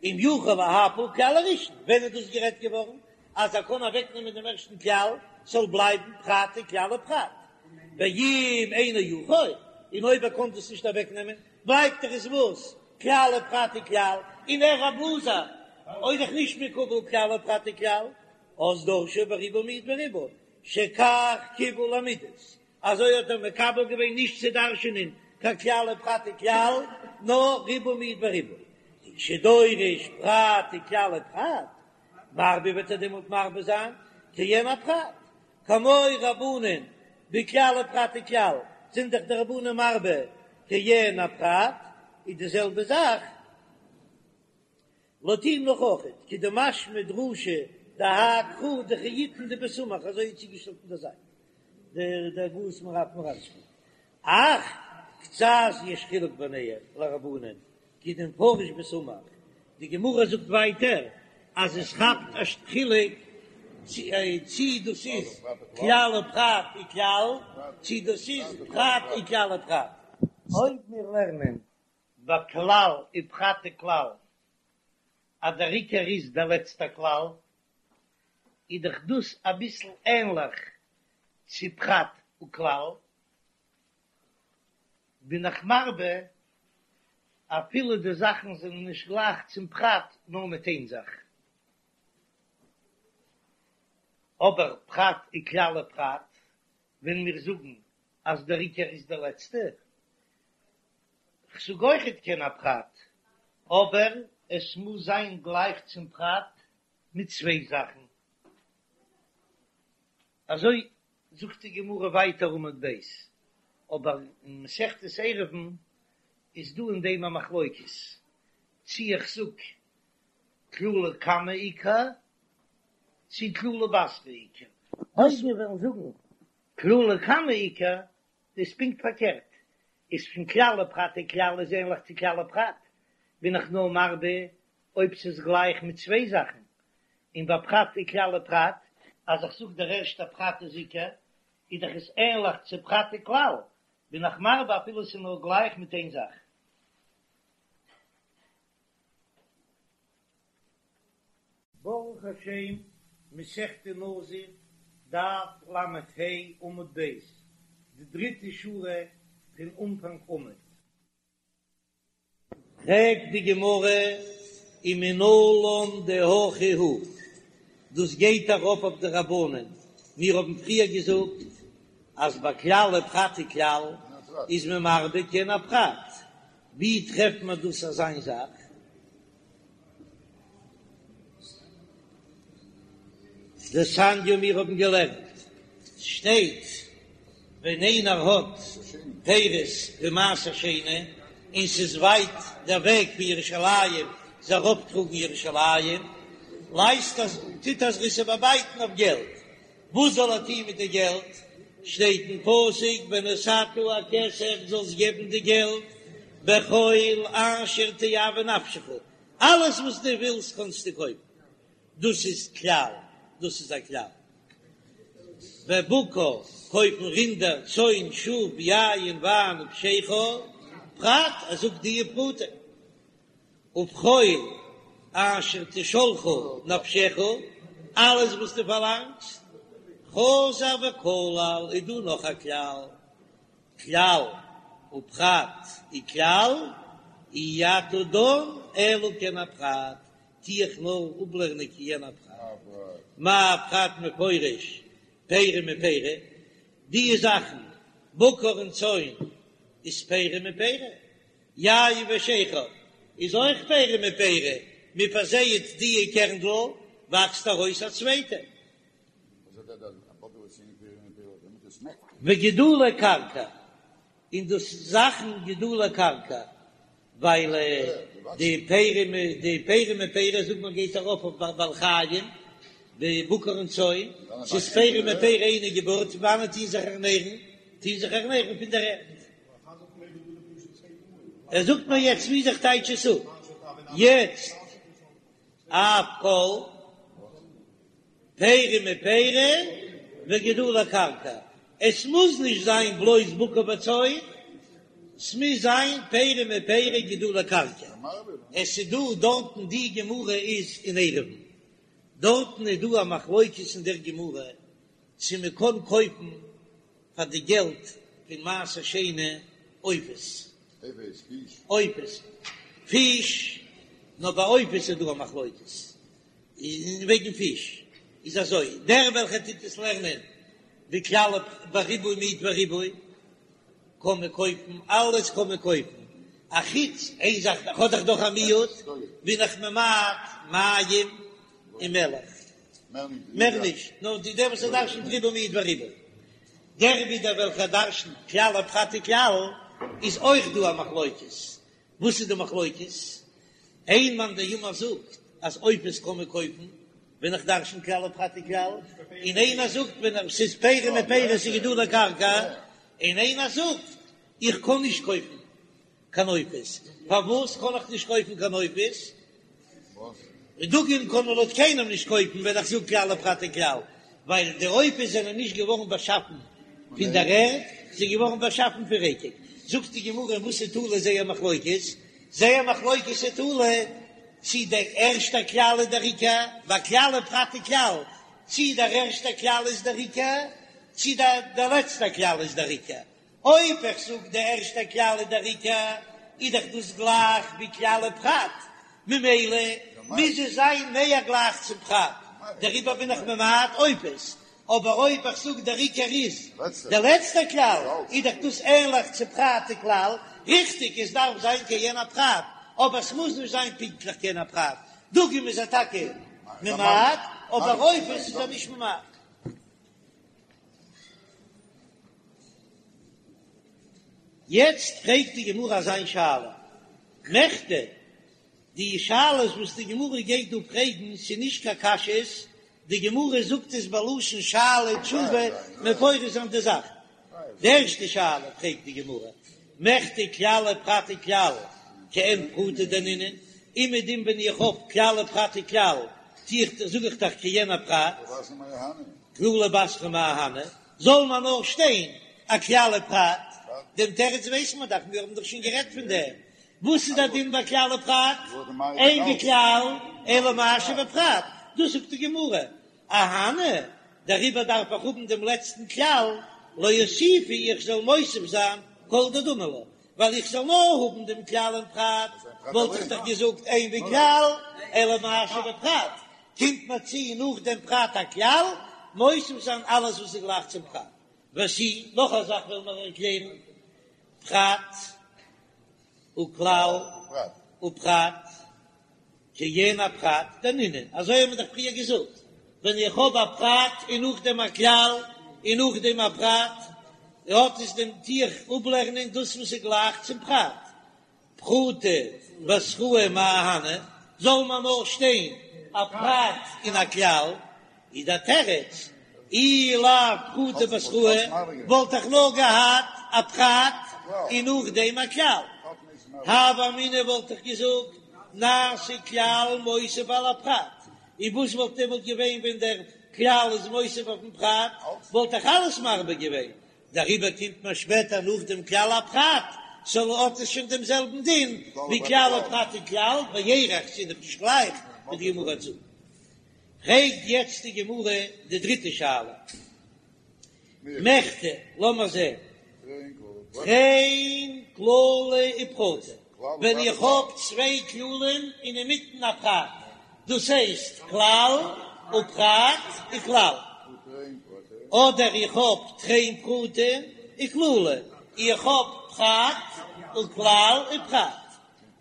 אם יכול להפיל כלל הראשון, ווען איז דאס גערעדט געווארן אז ער קען אוועקנעמען דעם ערשטן כלל ס'זאל בלייבן פרט וכלל ופרט, ואם אינו יכול, און אויב ער קען דאס נישט אוועקנעמען בלייבט דאך עס וואס? כלל ופרט וכלל, און ער רב אלעזר איז דאך נישט מקובל כלל ופרט וכלל, אז דורשו בריבוי מיעוט וריבוי, שכך קיבל למידות, אזוי האט ער מקבל געווען נישט צו דרש'ענען קיין כלל ופרט וכלל, נאר ריבוי מיעוט וריבוי, וכשדורש פרט וכלל ופרט, מרבה וועט ער דעמאלט מרבה זיין כעין הפרט, כמו רבנן בכלל ופרט וכלל, זענען דאך די רבנן מרבה כעין הפרט, איז די זעלבע זאך לויט אים נאך אויכעט, כדמשמע דרשה דהאי קרא דכי יתן דבסמך, אזוי איז צוגעשטעלט אין דער זייט דער דער הגהות מהר"ב מראצפערט, אך קצת יש חילוק ביניהם לרבנן כדמפרש בסמך, די גמרא זאגט ווייטער אז עס כאפט א חילוק. צי דאס איז כלל ופרט וכלל, צי דאס איז פרט וכלל ופרט. אויב מיר לערנען ביי כלל ופרט וכלל אז דער עיקר איז דער לעצטער כלל, איז דאך דאס אביסל ענליך צו פרט וכלל, בין איך מרבה אפילו די זאכן זענען נישט גלייך צום פרט נאר מיט איין זאך. אבער פרט וכלל ופרט, ווען מיר זאגן אז דער עיקר איז דער לעצטע, כ'זאג אויכעט כעין הפרט, אבער עס מוז זיין גלייך צום פרט מיט צוויי זאכן. אזוי זאגט די גמרא ווייטער עמוד ב', אבער אין מסכת עירובין איז דא אין דעם א מחלוקת, צי איך זאג כללא קמא עיקר, צי כללא בתרא עיקר. אויב מיר וועלן זאגן כללא קמא עיקר, איז פונקט פארקערט, איז פון כלל ופרט וכלל איז ענליך צו כלל ופרט, בין איך נאר מרבה אויב ס'איז גלייך מיט צוויי זאכן, און ביי פרט וכלל ופרט, אז איך זאג דער ערשטער פרט איז עיקר, איז דאך עס ענליך צו פרט וכלל, בין איך מרבה אפילו ס'איז נאר גלייך מיט איין זאך. ברוך השם, מסכת נזיר, דף לה עמוד ב', די דריטע שורה פון אנפאנג עמוד. פרעגט די גמרא ומנלן דהכי הוא, דאס גייט ארויף אויף די רבנן, מיר האבן פריער געזאגט אז ביי כלל ופרט וכלל איז מען מרבה כעין הפרט, ווי טרעפט מען דאס אזא זאך? דתניא מיר האבן געלערנט, ס'שטייט ווען איינער האט פירות פון מעשר שני און ס'איז ווייט דער וועג פון ירושלים זיי ארויפטראגן ירושלים, לייזט ער טוט ער זיך עס איבערבייטן אויף געלט, וואס זאל ער טון מיט די געלט? שטייט אין פסוק ונתתה הכסף זאלסט געבן די געלט בכל אשר תאוה נפשך, אלעס וואס דו ווילסט קענסטו קויפן, דאס איז כלל, דאס איז א כלל. בבקר, קויפן רינדער, צאן, שאף, יין, וויין, ובשכר, פרט, ער זאגט די פרטים. ובכל אשר תשאלך נפשך, אלעס וואס דו פארלאנגסט, חזר וכלל, איז דא נאך א כלל, כלל ופרט וכלל, אי אתה דן אלא כעין הפרט, טו איך נאר אפלערנען כעין הפרט, מה פרט מפורש פרי מפרי, די זאכן בקר און צאן איז פרי מפרי, יין ושכר איז אויך פרי מפרי, מען פארזייעט די קערנדל וואקסט ארויס א צווייטע. וגידולי קרקע, און דאס זאכן גידולי קרקע, ווייל די פרי די פרי מפרי זאגט מען גייט ארויף אויף בעלי חיים, די בקר און צאן, ס'איז פרי מפרי אינו געבורט, פון וואנעט טוהן זיך ערנערן? טוהן זיך ערנערן פון דער ערד. ער זאגט מיר יעצט ווי איך טייטש עס אפ יעצט אף כל פרי מפרי וגידולי קרקע, עס מוז נישט זיין בלויז בקר וצאן, ס'מוז זיין פרי מפרי גידולי קרקע, עס איז דא דארטן די גמרא איז אין עירובין, דארטן איז דא א מחלוקת אין דער גמרא צו מען קען קויפן פאר די געלט פון מעשר שני עופות, עופות, פיש, נאר ביי עופות איז דא א מחלוקת, און וועגן פיש איז אזוי, דער וועלכער טוט עס לערנען בכלל בריבוי מיעוט וריבוי, קען מען קויפן, אלעס קען מען קויפן, א חוץ איין זאך, האט דאך דאך א מיעוט, בין איך ממעט מים און מלח. מער נישט, נאר די דער וואס ער דרשנ'ט ריבוי מיעוט וריבוי. דער ווידער וועלכער דרשנ'ט כלל ופרט וכלל, איז אויך דא א מחלוקת. וואס איז די מחלוקת? איין מאן דאמר זאגט אז עופות קען מען קויפן ווען איך דרשן כלל ופרט וכלל, און איינער זאגט ווען ס'איז פרי מפרי ס'איז גידולי קרקע, און איינער זאגט איך קען נישט קויפן קיין עופות, פארוואס קען איך נישט קויפן קיין עופות? דגים קען מען לויט קיינעם נישט קויפן ווען איך זאג כלל ופרט וכלל, ווייל די עופות זענען נישט געווארן באשאפן פון דער ערד, זיי זענען געווארן באשאפן פון רקק. זאגט די גמרא אין וואס איז תלוי זייער מחלוקת? זייער מחלוקת איז תלוי צי דער ערשטער כלל איז דער עיקר, ביי כלל ופרט וכלל, צי דער ערשטער כלל איז דער עיקר, צי דער לעצטער כלל איז דער עיקר. אויב איך זאג די ערשטע כלל איז דער עיקר, איז דאך דאס גלייך ווי כלל ופרט, ממילא מוז עס זיין מער גלייך צום פרט, דעריבער בין איך ממעט עופות. אבער אויב איך זאג דער עיקר איז דער לעצטער כלל, איז דאך דאס ענליך צו פרט וכלל, ריכטיג עס דארף זיין כעין הפרט, אבער עס מוז נישט זיין פונקטליך כעין הפרט, דגים איז ער טאקע ממעט, אבער עופות איז ער נישט ממעט. יעצט פרעגט די גמרא אזא שאלה, מכדי, די שאלות וואס די גמרא גייט דא פרעגן ס'איז נישט קיין קשיות, די גמרא זאגט עס בלשון שאלה ותשובה מפרש זיין די זאך. די ערשטע שאלה פרעגט די גמרא, מכדי כלל ופרט וכלל כעין פרטא דנינהו, אומעדום ווען איך האב כלל ופרט וכלל טו איך זאג איך דאך כעין הפרט, כללא בתרא מאי אהני, זאל מען נאר שטיין א כלל ופרט, דעם תירוץ ווייסט מען דאך, מיר האבן דאך שוין גערעדט פון דעם, וואס איז דער דין ביי כלל ופרט? אין בכלל אלא מה שבפרט, דאס זאגט די גמרא, אהני, דעריבער דארף איך האבן דעם לעצטן כלל, לאוסופי איך זאל מוסיף זיין כל דדמי לה, ווייל איך זאל נאר האבן דעם כלל און פרט, וואלט איך דאך געזאגט אין בכלל אלא מה שבפרט, קומט מיר צו נאך דעם פרט א כלל, מוסיף זיין אלעס וואס איז גלייך צום פרט. ותו, נאך א זאך וועלן מיר ערקלערן, פרט וכלל ופרט כעין הפרט דנינהו, אזוי האבן מיר דאך פריער געזאגט, ווען איך האב א פרט און נאכדעם א כלל און נאכדעם א פרט, האט עס דעם טו איך אפלערנען דאס וואס איז גלייך צום פרט, פרטא בתראי מאי אהני, זאל מען נאר שטיין א פרט און א כלל, איז דער תירוץ, אי לאו פרטא בתראי, וואלט איך נאר געהאט א פרט און נאכדעם א כלל. הוה אמינא וואלט איך געזאגט, נעשה כלל מוסיף על הפרט, און וואס וואלט דעמאלט געווען ווען דער כלל איז מוסיף אויפן פרט, וואלט איך אלעס מרבה געווען, דעריבער קומט מען שפעטער נאך דעם כלל א פרט, סאו האט עס שוין דעם זעלבן דין ווי כלל ופרט וכלל, בערך ס'איז דאך נישט גלייך ווי די גמרא זאגט. פרעגט יעצט די גמרא די דריטע שאלה, מכדי, לאמיר זען, תרין כללי ופרטא, ווען איך האב צוויי כללים און אינמיטן א פרט, דאס הייסט כלל ופרט וכלל, אדער איך האב תרין פרטי וכללא, איך האב פרט וכלל ופרט,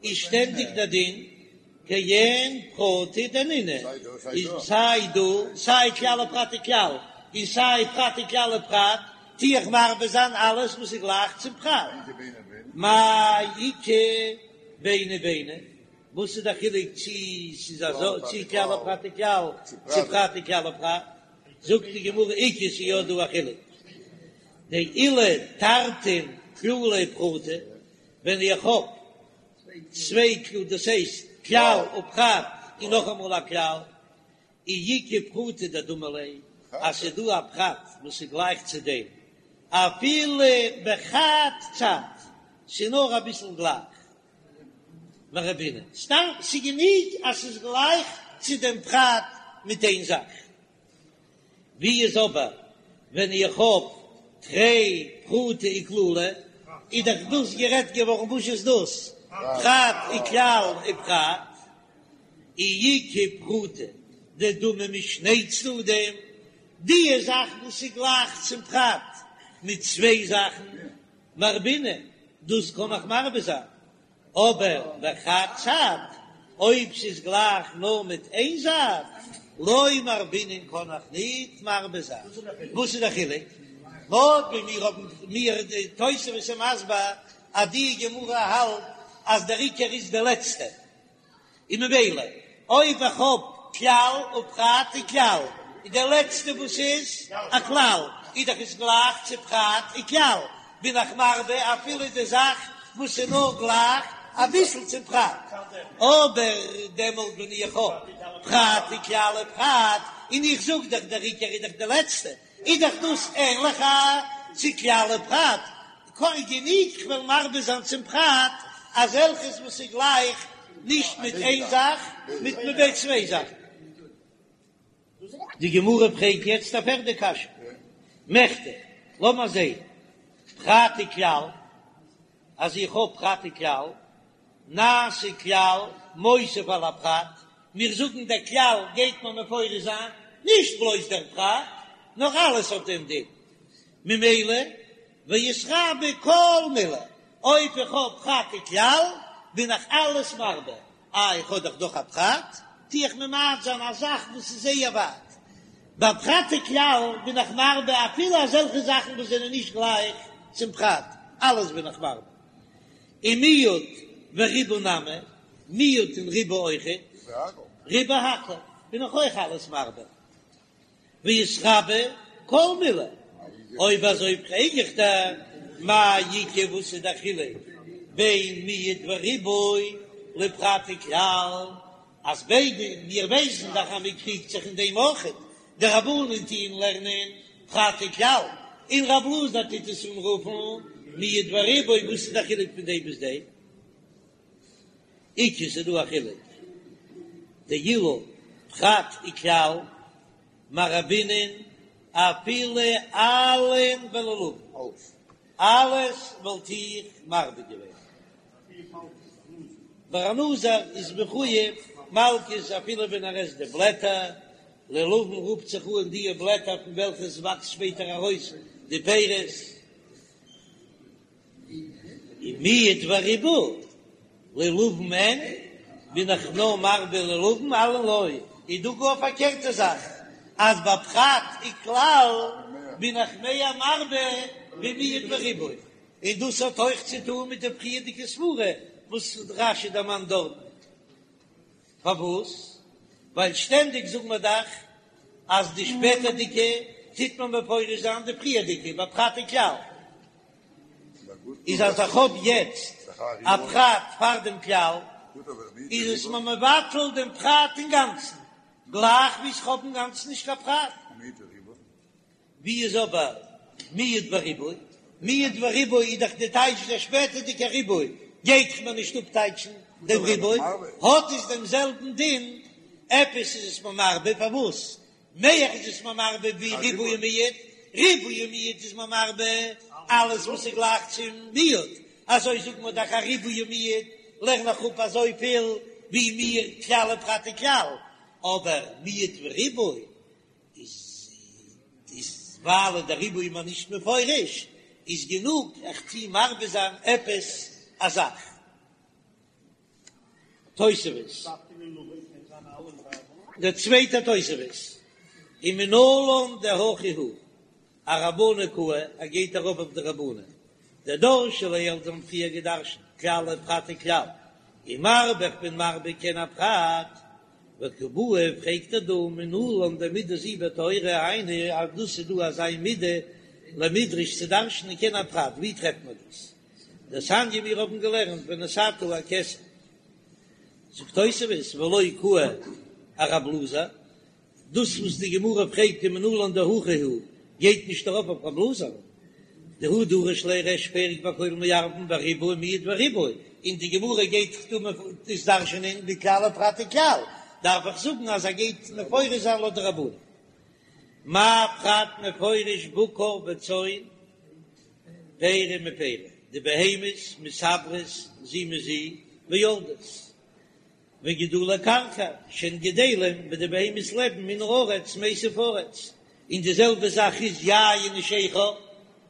איז שטענדיג דער דין כעין פרטא דנינהו, איז סיי דא סיי כלל ופרט וכלל, און סיי פרט וכלל ופרט, טו איך מרבה זיין אלעס וואס איז גלייך צום פרט. מאי איכא ביני וביני, וואס איז דער חילוק צי ס'איז אזוי צי כלל ופרט וכלל, צי פרט וכלל ופרט? זאגט די גמרא איכא ס'איז יא דא א חילוק, דאילו תרתין כללי ופרטא, ווען איך האב צוויי כללים דאס הייסט כלל ופרט און נאכאמאל א כלל, אי איכא פרטא דדמי ליה, אז ס'איז דא א פרט וואס איז גלייך צו דעם, אפילו בחד צד, ס'איז נאר אביסל גלייך, מרבינן, סתם ס'איז גענוג אז ס'איז גלייך צו דעם פרט מיט איין זאך. ווי איז אבער ווען איך האב תרי פרטי וכללא, איז דאך דאס גערעדט געווארן וואס איז דאס פרט וכלל ופרט, אי איכא פרטא דדמי משני צדדים, די זאך וואס איז גלייך צום פרט מיט צוויי זאכן, מרבינן, דאס קען איך מרבה זיין, אבער בחד צד, אויב ס'איז גלייך נאר מיט איין זייט, לא מרבינן קען איך ניט מרבה זיין. וואס איז דער חילוק? לויט ווי מיר האבן מיר די תוספות איז מסביר אז די גמרא האלט אז דער עיקר איז די לעצטע, און ממילא אויב איך האב כלל ופרט וכלל, איז דער לעצטע וואס איז א כלל, איז דאך עס גלייך צו פרט וכלל, בין איך מרבה אפילו די זאך וואס איז נאר גלייך. אביסל צום פרט, אבער דעמאלט ווען איך האב פרט וכלל ופרט, און איך זאג דאך דער עיקר איז דאך די לעצטע, איז דאך דאס ענליכער צו כלל ופרט, גענוג כ'וועל מרבה זיין צום פרט אזעלכעס וואס איז גלייך נישט מיט איין זאך, מיט מיט צוויי זאכן. די גמרא פרעגט יעצט א פערדע קשיא, מכדי, לאמער זעהן, פרט וכלל, אז איך האב פרט וכלל, נעשה כלל מוסיף על הפרט, מיר זאגן דער כלל גייט מען מפרש זיין נישט בלויז דער פרט, נאר אלעס האט דעם דין, ממילא ואיתרבו כל מילי, אויב איך האב פרט וכלל בין איך אלעס מרבה, אה איך האב דאך דאך א פרט, טו איך ממעט זיין א זאך וואס איז זייער ווייט. ביי פרט וכלל בין איך מרבה אפילו אזעלכע זאכן וואס זענען נישט גלייך צום פרט, אלעס בין איך מרבה. און מיעוט וריבוי נמי, מיעוט און ריבוי אויכעט, ריבה הכל, בין איך אויך אלעס מרבה. ואיתרבו כל מילי, אויב אזוי פרעג איך דיר, מאי איכא וואס איז דער חילוק בין מיעוט וריבוי לפרט וכלל, אז ביידע, מיר ווייסן דאך אז מען קריגט זיך אין דעם אויכעט, די רבנן טוען לערנען פרט וכלל, און רב אלעזר טוט עס אנרופן מיעוט וריבוי, וואס איז דער חילוק פון דעם ביז דעם? איכא ס'איז דא א חילוק דאילו פרט וכלל מרבינן אפילו עלין ולולבין, אלעס וואלט איך מרבה געווען. ביי א נזיר איז מחויב מלקות אפילו ווען ער עסט די בלעטער, לולבין רופט זיך אן די בלעטער פון וועלכע עס וואקסט שפעטער ארויס די פירות. און מיעוט וריבוי לולבין אין בין איך נאר מרבה לולבין עלין לא, איז דא גאר א פארקערטע זאך אז ביי פרט וכלל בין איך מער מרבה ווי מיעוט וריבוי, און דאס האט אויך צו טון מיט די פריערדיגע סברה וואס רש"י דערמאנט דארטן. פארוואס? ווייל שטענדיג זאגן מיר דאך אז די שפעטערדיגע טוט מען מפרש זיין די פריערדיגע ביי פרט וכלל. איז אז איך האב יעצט א פרט פאר דעם כלל, איז עס מיר מבטל דעם פרט אינגאנצן, גלייך ווי איך האב אינגאנצן נישט קיין פרט. ווי איז אבער מיעוט וריבוי? מיעוט וריבוי איז דאך די טייטש דער שפעטערדיגער ריבוי גייט דאך מיר נישט אפטייטשן דעם ריבוי, האט עס דעם זעלבן דין, עפעס איז עס מיר מרבה, פארוואס מער איז עס מיר מרבה ווי ריבוי ומיעוט? ריבוי ומיעוט איז מיר מרבה אלעס וואס איז גלייך צום מיעוט, אזוי זאגט מען דאך א ריבוי ומיעוט לערן איך אפ אזויפיל ווי מיר כלל ופרט וכלל, אבער מיעוט וריבוי איז איז ווייל דער ריבוי איז מיר נישט מפורש, איז גענוג איך טוה מרבה זיין עפעס א זאך. תוספות. דער צווייטער תוספות, ומנלן דהכי הוא, ארבנן קאי, ער גייט ארויף אויף די רבנן, דדרשי לעיל זיי האבן פריער געדרשנט כלל ופרט וכלל, ומרבה איך בין מרבה כעין הפרט, וקא בעי פרעגט ער דא מנלן דמידה זו בתורה היינו אז דאס איז דא אזא מידה למידרש צו דרש'נען כעין הפרט, ווי טרעפט מען דאס? דתניא מיר האבן געלערנט ונתתה הכסף, זאגט תוספות ולא קאי ארב אלעזר, דאס וואס די גמרא פרעגט ומנלן דהכי הוא גייט נישט ארויף אויף רב אלעזר, דהוא דריש ליה ריש פרק בכל מערבין בריבוי מיעוט וריבוי, און די גמרא גייט דא דאס דרש'ענען בכלל ופרט וכלל, דארף איך זאגן אז ער גייט מפרש זיין לויט די רבנן. מה פרט מפורש בקר וצאן פרי מפרי, די בהמות מתעברות זו מזו ויולדות, וגידולי קרקע שהן גדלים ווי די בהמות לעבן מן הארץ מיסב ארץ, און די זעלבע זאך איז יין ושכר,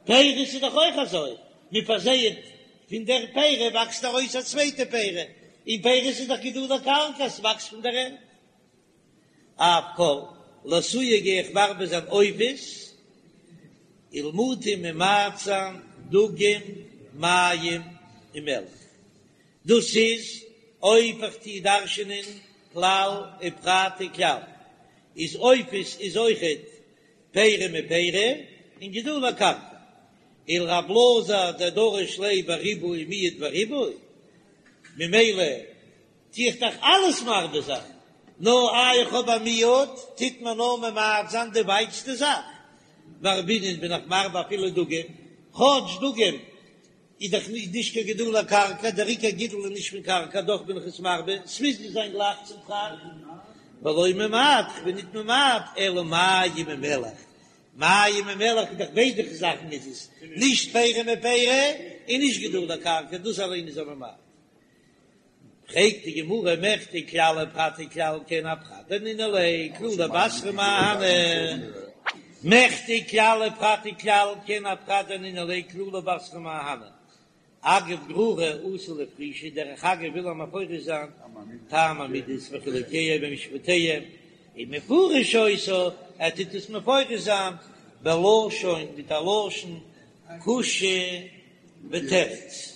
פירות איז דאך אויך אזוי, מען פארזייעט פון דער פרי וואקסט ארויס א צווייטע פרי, און פירות איז דאך גידולי קרקע עס וואקסט פון דער ערד. אף כל, לאתויי גיי איך מרבה זיין עופות, ולמעוטי ממעט זיין דגים מים ומלח. דאס איז אויב איך טוה דרש'ענען כלל ופרט וכלל, איז עופות איז אויכעט פרי מפרי און גידולי קרקע. ולרב אלעזר דדריש ליה בריבוי מיעוט וריבוי. ממילא טו איך דאך אלעס מרבה זיין, נאר איי איך האב א מיעוט, טוט מען נאר ממעט זיין די ווייטסטע זאך, מרבינן בין איך מרבה אפילו דגים, כאטש דגים איז דאך נישט קיין גידולי קרקע, דער עיקר גידול איז נישט פון קרקע, דאך בין איך עס מרבה, ס'מוז נישט זיין גלייך צום פרט, ולא ממעט, כ'בין ניט ממעט, אלא מים ומלח, מים ומלח איז דאך ביידע זאכן איז עס, נישט פרי מפרי און נישט גידולי קרקע, דאס אליין איז א ממעט. פרעגט די גמרא מכדי כלל ופרט וכלל כעין הפרט דנינהו ליה כללא בתרא מאי אהני, מכדי כלל ופרט וכלל כעין הפרט דנינהו ליה כללא בתרא מאי אהני, אגב גררא אתא לפרושי, דרך אגב וויל ער מפרש זיין טעם המידות וחילוקיהם ומשפטיהם, ומפרש אותה, ער טוט עס מפרש זיין בלשון מיט א לשון קושיא ותירוץ.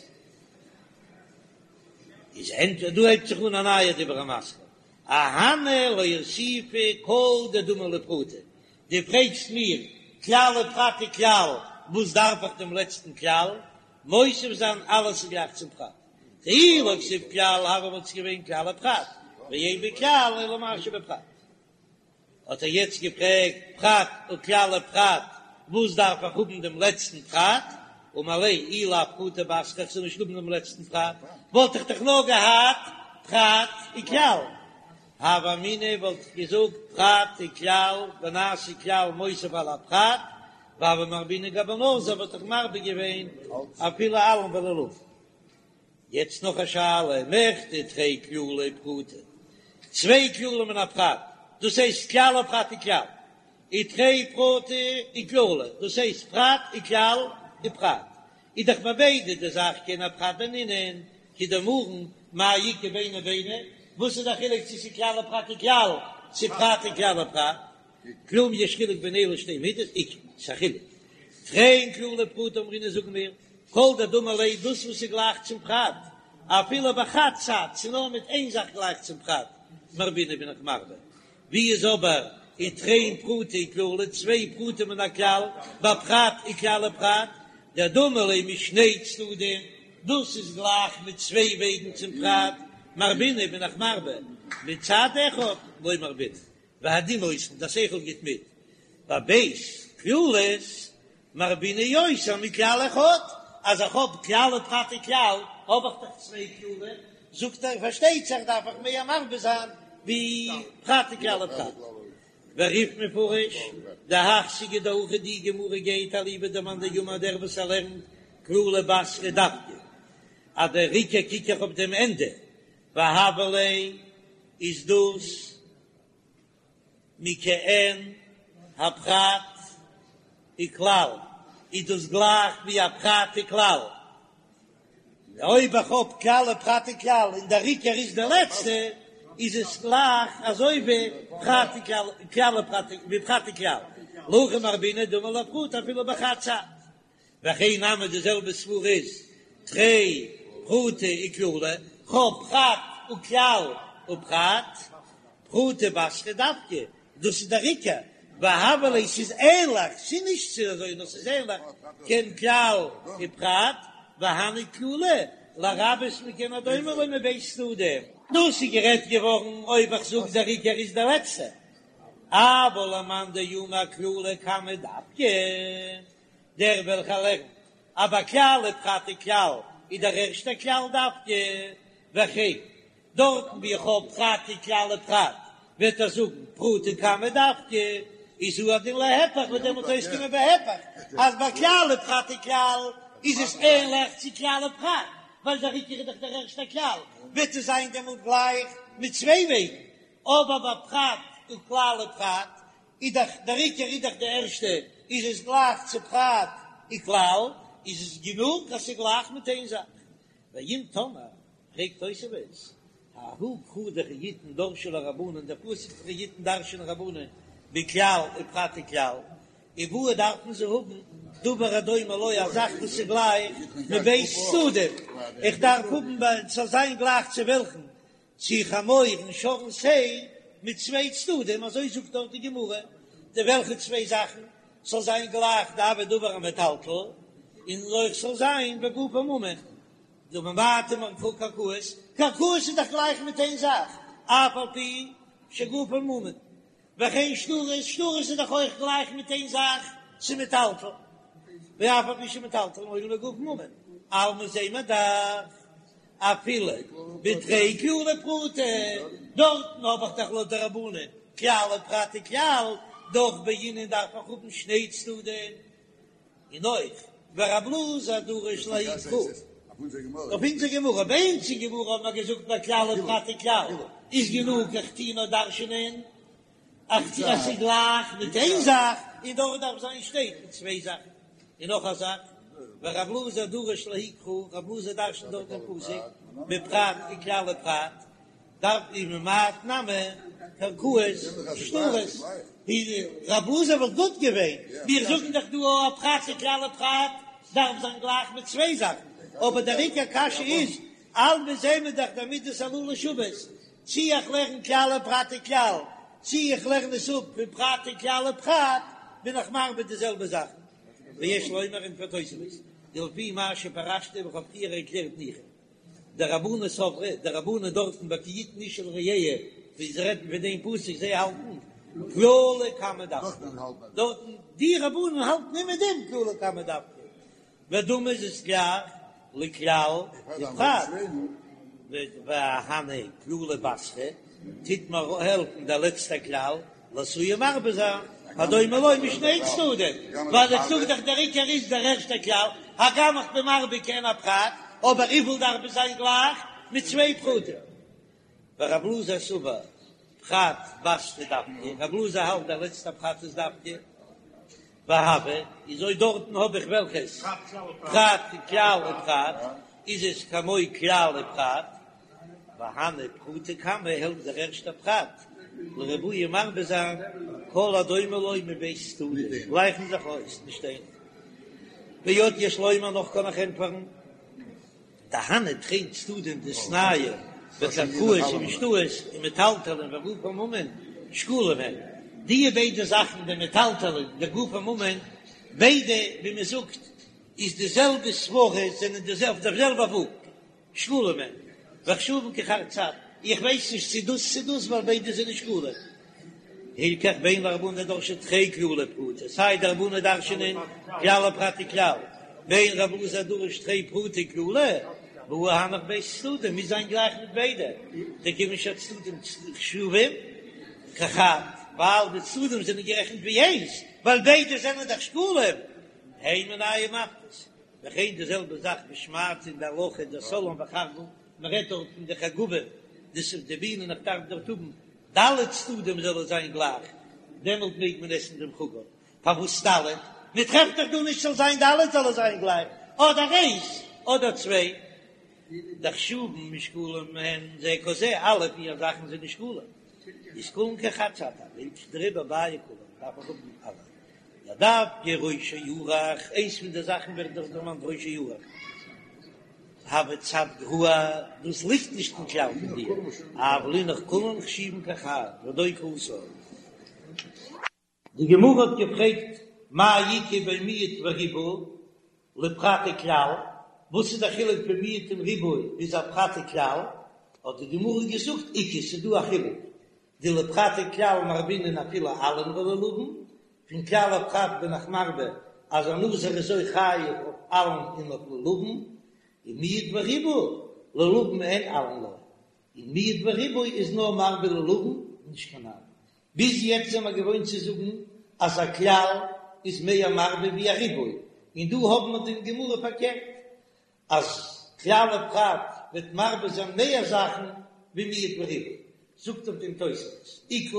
איז ענטפער, דא הייבט זיך אן א נייע דיבור המתחיל, אהני לאוסופי כל דדמי לפרטא, דו פרעגסט מיר כלל ופרט וכלל, וואס דארף איך דעם לעצטן כלל, מוסיף זיין אלעס איז גלייך צום פרט, דאי לא כתיב כלל הוה וואלט עס געווען כלל ופרט, ואין בכלל אלא מה שבפרט. האט ער יעצט געפרעגט פרט וכלל ופרט, וואס דארף איך האבן דעם לעצטן פרט? אמר ליה אי לאו פרטא בתרא איך זאל נישט האבן דעם לעצטן פרט, וואלט איך דאך נאר געהאט פרט וכלל. הוה אמינא וואלט איך געזאגט פרט וכלל ונעשה כלל מוסיף על הפרט, והוה מרבינן גבי נזיר וואלט איך מרבה געווען אפילו עלים ולולבים. יעצט נאך א שאלה, מכדי תרי כללי ופרטא, צוויי כללים און א פרט, דאס הייסט כלל ופרט וכלל, ותרי פרטי וכללא, דאס הייסט פרט וכלל ופרט, איז דאך ביי ביידע די זאך כעין הפרט דנינהו, כדאמרן מאי איכא ביני וביני, וואס איז די חילוק צו ס'איז כלל ופרט וכלל, צו פרט וכלל ופרט? כלום יש חילוק בין אלו שתי מידות? איכא, ס'איז א חילוק. תרין כללי ופרטא אמרינן זאגן מיר, כל דדמי ליה דאס וואס איז גלייך צום פרט, אפילו בחד צד, ס'איז נאר מיט איין זאך גלייך צום פרט, מרבינן בין איך מרבה. ווי איז אבער ותרין פרטי וכללא, צוויי פרטים און א כלל, בפרט וכלל ופרט, דדמי ליה משני צדדים, דאס איז גלייך מיט צוויי וועגן צום פרט, מרבינן בין איך מרבה, מצד אחד לא מרבינן. והדין נותן, דער שכל גיט מיט, בב' כללות מרבינן יותר מכלל אחד, אז איך האב כלל ופרט וכלל האב איך דאך צוויי כללים, זאגט ער פארשטייט זיך דארף איך מער מרבה זיין ווי פרט וכלל ופרט. ורי"ף מפרש, דהך סוגיא דהכא די גמרא גייט אליבא דמאן דאמר דער וואס ער לערנט כללא בתרא דווקא אז דער עיקר קוק איך אויף דעם ענדע והוה ליה איז דאס מכעין הפרט וכלל, איז דאס גלייך ווי א פרט וכלל, אויב איך האב כלל ופרט וכלל און דער עיקר איז די לעצטע, איז עס גלייך אזוי ווי פרט וכלל, כלל ופרט, ווי פרט וכלל, להכי מרבינן דמי לפרט אפילו בחד צד. והכי נמי די זעלבע סברא איז תרי פרטי וכללא, כ'האב פרט וכלל ופרט, פרטא בתרא דווקא, דאס איז דער עיקר, והוה ליה ס'איז ענליך, ס'איז נישט צו אזוי נאר ס'איז ענליך, כעין כלל ופרט, והני כללי לרבות מכעין הדומה לו מב' צדדים. דאס איז גערעדט געווארן אויב איך זאג דער עיקר איז דער לעצטער, אבל למאן דאמר כללא קמא דווקא. דער וועלכער לערנט אז ביי כלל ופרט וכלל איז דער ערשטער כלל דווקא, וכן דארטן ווי איך האב פרט וכלל ופרט וועט ער זאגן פרטא קמא דווקא, איז הוא הדין להיפך וועט דעמאלט אויסקומען בהיפך אז ביי כלל ופרט וכלל איז עס ענליך צו כלל ופרט ווייל דער עיקר איז דאך דער ערשטער כלל, וועט עס זיין דעמאלט גלייך מיט צוויי וועגן, אבער ביי פרט וכלל ופרט איז דאך דער עיקר איז דאך די ערשטע, איז עס גלייך צו פרט וכלל, איז עס גענוג אז ס'איז גלייך מיט איין זאך. ואם תאמר, פרעגט תוספות, ההוא קרא דכי יתן דרשו ליה רבנן, דער פסוק דכי יתן דרש'נען רבנן בכלל ופרט וכלל, ובעו דארפן זיי האבן דבר הדומה לו א זאך וואס איז גלייך מב' צדדים, איך דארף האבן ס'זאל זיין גלייך צו וועלכן צו חמור און שור און שה מיט צוויי צדדים, אזוי זאגט דארט די גמרא, די וועלכע צוויי זאכן ס'זאל זיין גלייך דהוי דבר המטלטל, און אויך ס'זאל זיין וגופו ממון. דממעטין קרקעות, קרקעות איז דאך גלייך מיט איין זאך, אף על פי שגופן ממון, וכן שטרות, שטרות איז דאך אויך גלייך מיט איין זאך, ס'מטלטל, ואף על פי שמטלטלין הואיל וגופן ממון, אלמא זעט מען דאך אפילו בתרי כללי ופרטא, דארטן האב איך דאך לויט די רבנן כלל ופרט וכלל, דאך בעינן דארף איך האבן שני צדדים. און אויך ורב אלעזר דריש לההיא קרא אויף אונזער גמרא, ביי אונז אין גמרא האט מען געזאגט ביי כלל ופרט וכלל איז גענוג איך טוה נאר דרש'נען אז ס'איז גלייך מיט איין זאך און דארט דארף זיין שטייט מיט צוויי זאכן, און נאך א זאך ורב אלעזר דריש לההיא קרא רב אלעזר דרש'נט דארט דעם פסוק בפרט וכלל ופרט. דארף די ממעט נמי קרקעות שטרות רב אלעזר וואלט גוט געווען, מיר זאגן דאך דא א פרט וכלל ופרט דארף זיין גלייך מיט צוויי זאכן, אבער דער עיקר קשיא איז, אלמא זעהן מיר דאך די מידות הללו שוות, צי איך לערן כלל ופרט וכלל, צי איך לערן עס אפ פון פרט וכלל ופרט, בין איך מרבה די זעלבע זאכן. ויש לומר ענטפערט תוספות, דלפי מה שפירשתי וואס כ'האב פריער ערקלערט ניחא. דרבנן סברי, די רבנן דארטן ביי כי יתן איש אל רעהו, ווי זיי רעדן פון דעם פסוק, זיי האלטן כללא קמא דווקא, דארטן די רבנן האלטן אימער דעם כללא קמא דווקא, ודמי איז עס גלייך לכלל ופרט, והני כללא בתרא, טוט מיר העלפן דער לעצטער כלל, לאתויי מרבה זיין, הדומה לו משני צדדים, ווייל איך זאג דאך דער עיקר איז דער ערשטער כלל, הגם איך בין מרבה כעין הפרט, אבער וויפיל דארף עס זיין גלייך מיט צוויי פרטים. ורב אלעזר סבר פרט בתרא דווקא, רב אלעזר האלט דער לעצטער פרט איז דווקא, והוה, איז אויב דארטן האב איך וועלכעס פרט כלל ופרט, איז עס כמו כלל ופרט, והני פרטא קמא העלפט דער ערשטער פרט לרבויי מרבה זיין כל הדומה לו מב' צדדים גלייכן זיך אויס נישט איינער. ועוד יש לומר נאך קען איך ענטפערן דהני תרין צדדים דאיתנהו בקרקעות ובשטרות ומטלטלין וגופן ממון שקולים הן די ביידע זאכן די מטלטלין די גופן ממון ביידע ווי מען זאגט איז די זעלבע סברה זענען די אויף דער זעלבע וואג. שקולים הן, וחשובין כחד צד, איך ווייס נישט צו דאס צו דאס ווייל ביידע זענען שקולים. הלכך בין לרבנן דדרשי תרי כללי ופרטא, סיי די רבנן דרש'נען כלל ופרט וכלל, בין רב אלעזר דדריש תרי פרטי וכללא, והא הנך ב' צדדים מוז זיין גלייך מיט ביידע, דכיון שהצדדים חשובים כחד, ווייל די צדדים זענען גערעכנט ווי איינס, ווייל ביידע זענען דאך שקולים, הן מינייהו מפקות, וכן די זעלבע זאך בשמעתא אין די הלכה דסלען וחרגול, מען רעדט דארט פון די חגבים, דאס איז די בינען איך דארף דארט האבן ד' צדדים זאל עס זיין גלייך, דעמאלט מעג מען עסן דעם חגב, פארוואס ד'? מען טרעפט דאך דא נישט ס'זאל זיין ד' זאל עס זיין גלייך, אדער איינס אדער צוויי, דחשובין ושקולים הן זה כזה, אלע פיר זאכן זענען שקולים, איז כולן כחד צד, דעריבער בעי כולן דארף איך האבן אלע. דדווקא ראשו ארוך, איינס פון די זאכן ווערט דאך דערמאנט ראשו ארוך, הוי צד גרוע, דאס ליגט נישט אין כלל פון דיר, אבל אינך כולן חשיבין כחד, ודוק התם. די גמרא האט געפרעגט מאי איכא בין מיעוט וריבוי לפרט וכלל, וואס איז די חילוק פון מיעוט און ריבוי ביז א פרט וכלל, האט די גמרא געזאגט איכא ס'איז דא א חילוק, דלפרט וכלל מרבינן אפילו עלין ולולבין, פון כלל ופרט בין איך מרבה אז א נזיר איז אויך חייב אויף עלין און אויף לולבין, און מיעוט וריבוי לולבין אין עלין לא, און מיעוט וריבוי איז נאר מרבה לולבין נישט קיין עלין. ביז יעצט זעמער געוואוינט צו זאגן אז א כלל איז מער מרבה ווי א ריבוי, און דא האבן מיר די גמרא פארקערט אז כלל ופרט וועט מרבה זיין מער זאכן ווי מיעוט וריבוי, זאגט אויף דעם תוספות, איכא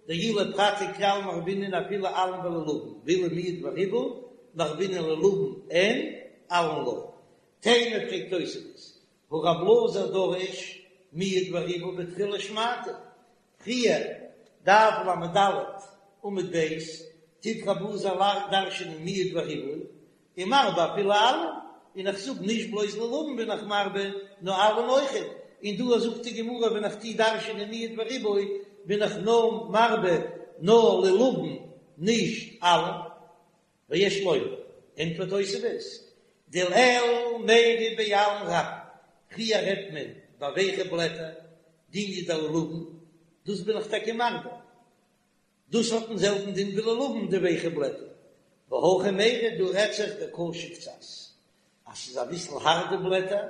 דאי לפרט וכלל מרבינן אפילו עלין ולולבין, ואילו מיעוט וריבוי מרבינן לולבין אין עלין לא. תימה פרעגט תוספות, הא רב אלעזר דריש מיעוט וריבוי בתחילת שמעתא, פריער, דף לד עמוד ב', טוט רב אלעזר דרש'ענען מיעוט וריבוי, און מרבה אפילו עלין, און איך זאג נישט בלויז לולבין בין איך מרבה, נאר עלין אויכעט, און דא זאגט די גמרא ווען איך טו דרש'ענען מיעוט וריבוי בין איך נאר מרבה נאר לולבין נישט עלין. ויש לומר, ענטפערט תוספות, דלעיל מיירי בעלין רבים. פריער רעדט מען ביי ווייכע בלעטער, דיניא דלולבין, דאס בין איך טאקע מרבה, דאס האט דעם זעלבן דין ווי לולבין די ווייכע בלעטער, והכא מיירי דא רעדט זיך דקשי קצת, אז ס'איז אביסל הארט די בלעטער,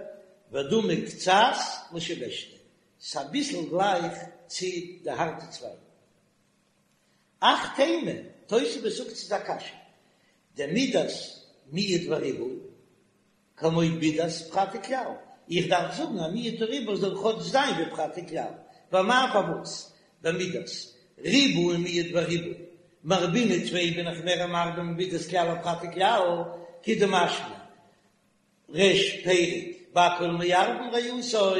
ודמי קצת לשבישתא, ס'איז אביסל גלייך צו די הארטע צווייגן. אך תימה, תוספות זאגט ס'איז א קשיא, דמידת מיעוט וריבוי, כמו מידת פרט וכלל, איך דארף זאגן אז מיעוט וריבוי זאל כאטש זיין ווי פרט וכלל, ואמאי פארוואס במידת ריבוי מיעוט וריבוי מרבינן טפי בין איך מער מרבה ממידת כלל ופרט וכלל, כדמשמע ריש פרק בכל מערבין ריעותו,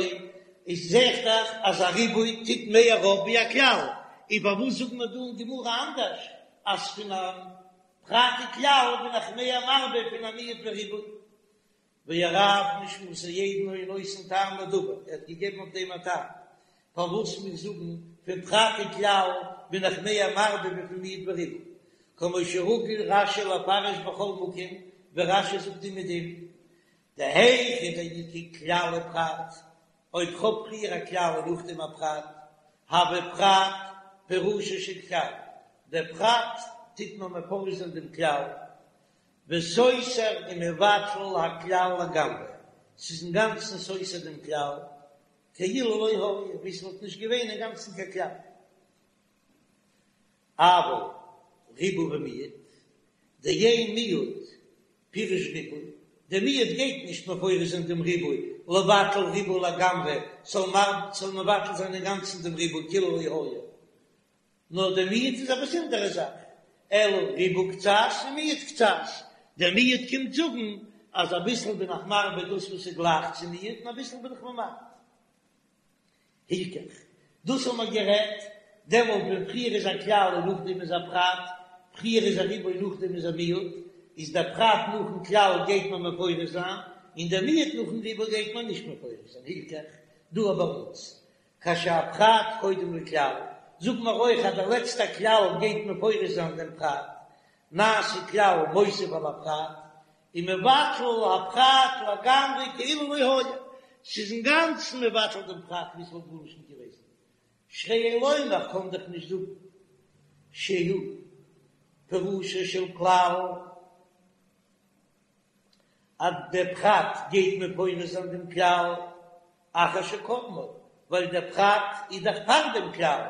איז זעהט דאך אז א ריבוי טוט מער אויף ווי א כלל, און פארוואס זאגט מען דא אין גמרא אנדערש אז פון א פרט וכלל בין איך מער מרבה פון א מיעוט וריבוי? והרב נשמתו עדן היה נותן טעם לדבר, ער האט געגעבן אויף דעם א טעם פארוואס מיר זאגן פון פרט וכלל בין איך מער מרבה ווי פון מיעוט וריבוי, כמו שרגיל רש"י לפרש בכל מקום, ווי רש"י זאגט אומעדום, דהיכא דאיכא כלל ופרט, אויב כ'האב פריער א כלל און נאכדעם א פרט, הוי פרט פירושו של כלל, דער פרט טוט נאר מפרש זיין דעם כלל, וסותר ומבטל הכלל לגמרי, ס'איז אינגאנצן סותר דעם כלל, כאילו לא היה, ווי ס'וואלט נישט געווען אינגאנצן קיין כלל. אבל ריבוי ומיעוט, דאין מיעוט פירוש ריבוי, דער מיעוט גייט נישט מפרש זיין דעם ריבוי, לבטל ריבוי לגמרי, ס'זאל מבטל זיין אינגאנצן דעם ריבוי כאילו לא היה, נאר דער מיעוט איז א באזונדערע זאך, אלא ריבוי קצת ומיעוט קצת, דער מיעוט קומט זאגן אז אביסל בין איך מרבה דאס וואס איז גלייך צו מיעוט און אביסל בין איך ממעט. הילכך, דאס האבן מיר גערעדט דעמאלט ווען פריער איז א כלל און נאכדעם איז א פרט, פריער איז א ריבוי נאכדעם איז א מיעוט, איז דער פרט נאכן כלל גייט מען מפרש זיין, און דער מיעוט נאכן ריבוי גייט מען נישט מפרש זיין, הילכך, דא ביי אונז כשהפרט קודם לכלל, זאגן מיר אויך אז דער לעצטער כלל גייט מפרש זיין דעם פרט, נעשה כלל מוסיף על הפרט, ומבטל הפרט לגמרי כאילו לא היה, ס'איז אינגאנצן מבטל דעם פרט ווי ס'וואלט גארנישט נישט געוועזן, שהרי אין לומר קען דאך נישט זאגן שהוא פירושו של כלל אז דער פרט גייט מפרש זיין דעם כלל אחר שקדמו, ווייל דער פרט איז דאך פאר דעם כלל,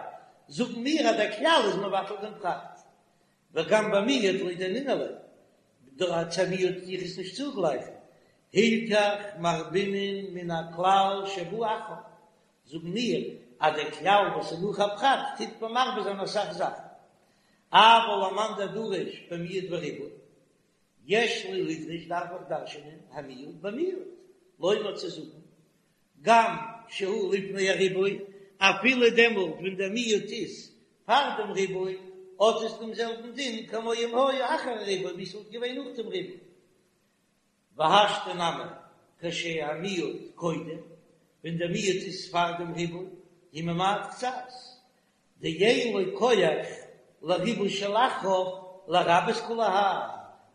זאגן מיר אז דער כלל איז מבטל דעם פרט, וגם במיעוט לא דיינינן ליה, דא צו א מיעוט טו איך עס נישט צוגלייכן, הילכך מרבינן מן הכלל שבא אחריו, זאגן מיר אז דער כלל וואס איז נאך א פרט טוט מען מרבה זיין אסאך זאכן, אבל למאן דדריש במיעוט וריבוי, יש לי לדרוש דארף איך דרש'נען המיעוט במיעוט, לומר צו זאגן גם שהוא לפני הריבוי, אפילו דעמאלט ווען דער מיעוט איז פאר דעם ריבוי, האט עס דעם זעלבן דין כמו אם היה אחר הריבוי, ווי ס'וואלט געווען נאך דעם ריבוי. והשתא נמי כשהמיעוט קודם, ווען דער מיעוט איז פאר דעם ריבוי, הוא ממעט קצת, דאין לו כח לריבוי שלאחריו לרבות כולי האי,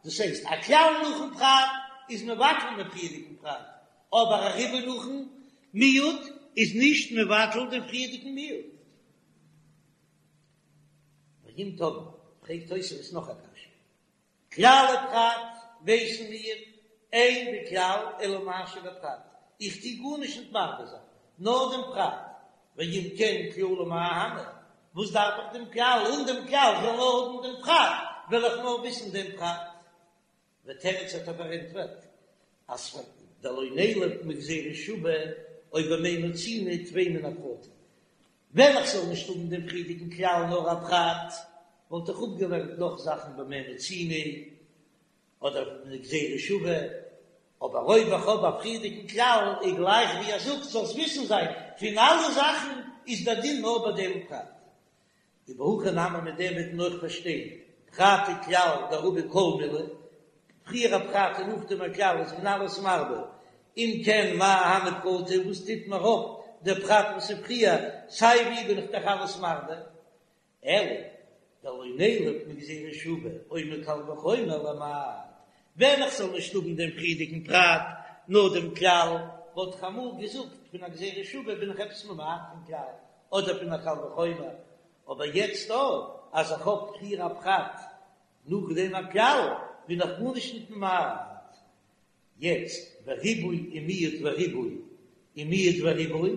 דאס הייסט א כלל נאכן פרט איז מבטל דעם פריערדיגן פרט, אבער א ריבוי נאכן מיעוט איז נישט מבטל דעם פריערדיגן מיעוט. ואם תאמר, פרעגט תוספות נאך א קשיא, כלל ופרט ווייסן מיר, אין בכלל אלא מה שבפרט, איך טו גארנישט נישט מרבה זיין, נאר דעם פרט, ואם כן כללא מאי אהני, וואס דארף איך דעם כלל, אן דעם כלל כ'וועל נאר האבן דעם פרט, וועל איך נאר וויסן דעם פרט. ותירץ האט ער פארענטפערט אז פאר דלא נילף מגזירה שוה או במה מצינו טפי מן הפרטים, ווען איך זאל נישט האבן דעם פריערדיגן כלל נאר א פרט, וואלט איך אפגעלערנט נאך זאכן במה מצינו אדער מגזירה שוה, אבער אויב איך האב א פריערדיגן כלל איז גלייך ווי ער זאגט זאלסט וויסן זיין פון אלע זאכן איז דער דין נאר ביי דעם פרט. ובהכי נמי מיט דעם וועט מען אויך פארשטיין פרט וכלל דרבי כל מילי, פריער א פרט און נאכדעם א כלל איז מען אלעס מרבה, אם כן מאי אהני פרטא וואס טוט מיר אויף דער פרט וואס איז פריער, סיי ווי בין איך דאך אלעס מרבה, אלא דלא נילף מגזירה שוה או מקל וחומר למעט, ווען איך זאל נישט האבן דעם פריערדיגן פרט נאר דעם כלל. וואלט איך אמאל געזאגט פון א גזירה שוה בין איך עפעס ממעט פון כלל, אדער פון א קל וחומר, אבער יעצט דא אז איך האב פריער א פרט נאכדעם א כלל בין איך גארנישט ניט ממעט. יעצט וריבוי ומיעוט וריבוי ומיעוט וריבוי,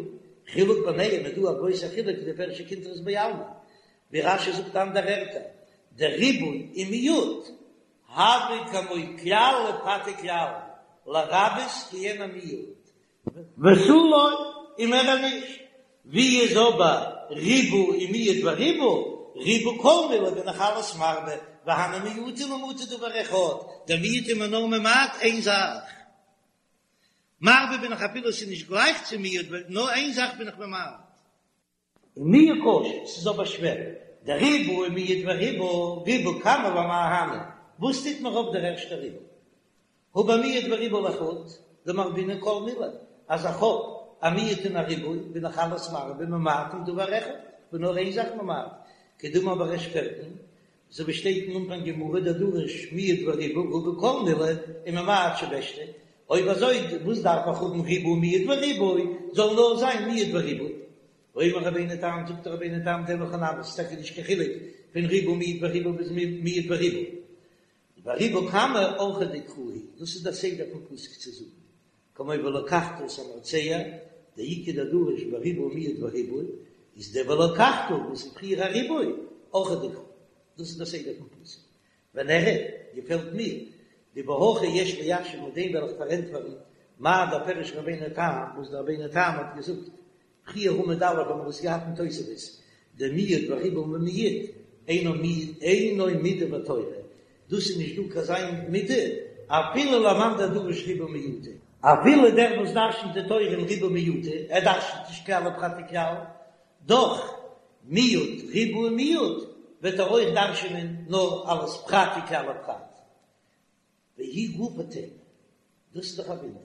חילוק ביניהם איז דא א גרויסע חילוק כדפירש קונטרס בעלמא, ווי רש"י זאגט אנדערע ערטער, דריבוי ומיעוט הוי כמו כלל ופרט וכלל, לרבות כעין המיעוט, ותו לא, און מער נישט. ווי איז אבער ריבוי ומיעוט וריבוי, ריבה כל מילי בין איך אלעס מרבה, והני מיעוטי למעוטי דבר אחד, דער מיעוט איז מען נאר ממעט איין זאך. מרבה בין איך אפילו עס איז נישט גלייך צו מיעוט, נאר איין זאך בין איך ממעט. ומיהו קשה, ס'איז אבער שווער, דריבה ומיעט וריבה, ריבה קמא למאי אהני, וואס טוט מיר אויף דער ערשטער ריבוי? הא במיעט וריבה לחוד, דמרבינן כל מילי, אז איך האב א מיעוט און א ריבוי, בין איך אלעס מרבה ממעטין דבר אחד, כ'בין נאר איין זאך ממעט, כדאמר בריש פרקין, אזוי ווי שטייט אין אנפאנג גמרא דדריש מיעט וריבה רבי כל מילי וממעט שבשתא, אויב אזוי וואס דארף איך האבן ריבה מיעט וריבוי, זאל נאר זיין מיעט וריבוי. ואומר רבינו תם, זאגט רבינו תם דהכי נמי, ס'איז טאקע נישט קיין חילוק פון ריבה מיעט וריבה ביז מיעט וריבוי. וריבה קמא אורחיה דקרא הוא, דאס איז דער סדר פון פסוק צו זאגן, כמו ולקחת את המרצע, דאיכא דדריש בריבה מיעט וריבוי, איז דער ולקחת וואס איז פריער א ריבוי, אורחיה דקרא, דאס איז דער סדר פון פסוק. ונראה, געפעלט מיר, דבהכי יש ליישב מיט דעם וועל איך פארענטפערן מאי דפירש רבינו תם, וואס דער רבינו תם האט געזאגט פריער עמוד א' האבן מיר עס געהאט אין תוספות, דמיעט וריבה ומיעט אינו אינו מידה בתורה, דאס איז נישט דא קיין אזא מידה אפילו למאן דדריש ריבוי ומיעוטא, אפילו דער וואס דרשנ'ט די תורה אין ריבוי ומיעוטא, ער דרשנ'ט נישט כלל ופרט וכלל, דאך מיעוט ריבוי ומיעוט וועט ער אויך דרשנ'ען נאר אלס פרט וכלל ופרט. והיא גופא תימה, דאס איז דאך א וואונדער,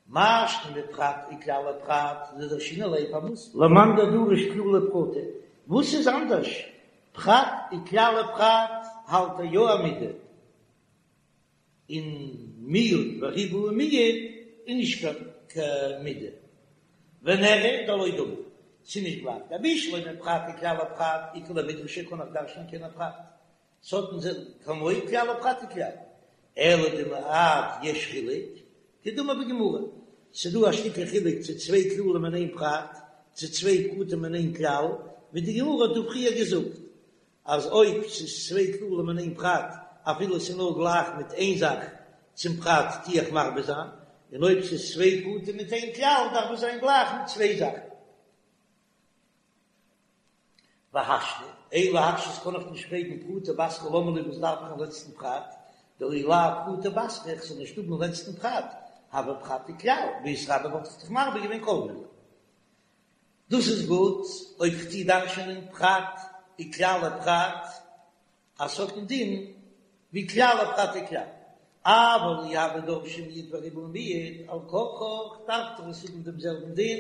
מאי שנא בפרט וכלל ופרט דדרשינן ליה פארוואס למאן דדריש כללי ופרטי, וואס איז אנדערש פרט וכלל ופרט האלט ער יא א מידה, און מיעוט וריבוי ומיעוט איז נישט קיין מידה, ונראה דלא דמי, ס'איז נישט גלייך, דבשלמא פרט וכלל ופרט איכא למידרשיה קען איך דרש'נען כעין הפרט, ס'האט אין זיך כמו כלל ופרט וכלל, אלא דמעט יש חילוק, כדאמר בגמרא, ס'דא א שטיקל חילוק צו צוויי כללים אין איין פרט, צו צוויי פרטים אין איין כלל, ווי די גמרא האט דא פריער געזאגט, אז אויב ס'איז צוויי כללים אין איין פרט, אפילו ס'איז נאר גלייך מיט איין זאך צום פרט טו איך מרבה זיין, און אויב ס'איז צוויי פרטים מיט איין כלל דארף עס זיין גלייך מיט צוויי זאכן. והשתא, אין להקשות קען איך נישט פרעגן פרטא בתרא למה לי וואס דארף איך אין לעצטן פרט, דאי לאו פרטא בתרא איך זאל נישט האבן אין לעצטן פרט, הוי פרט וכלל, ואיתרבי וואלט איך דאך מרבה געווען כל מילי. דאס איז גוט אויב כ'טוה דרש'ענען פרט וכלל ופרט, אז ס'האט א דין ווי כלל ופרט וכלל, אבל אי הוו דרשי מיעוט וריבוי ומיעוט, על כרחך דארף דאך עס האבן דעם זעלבן דין,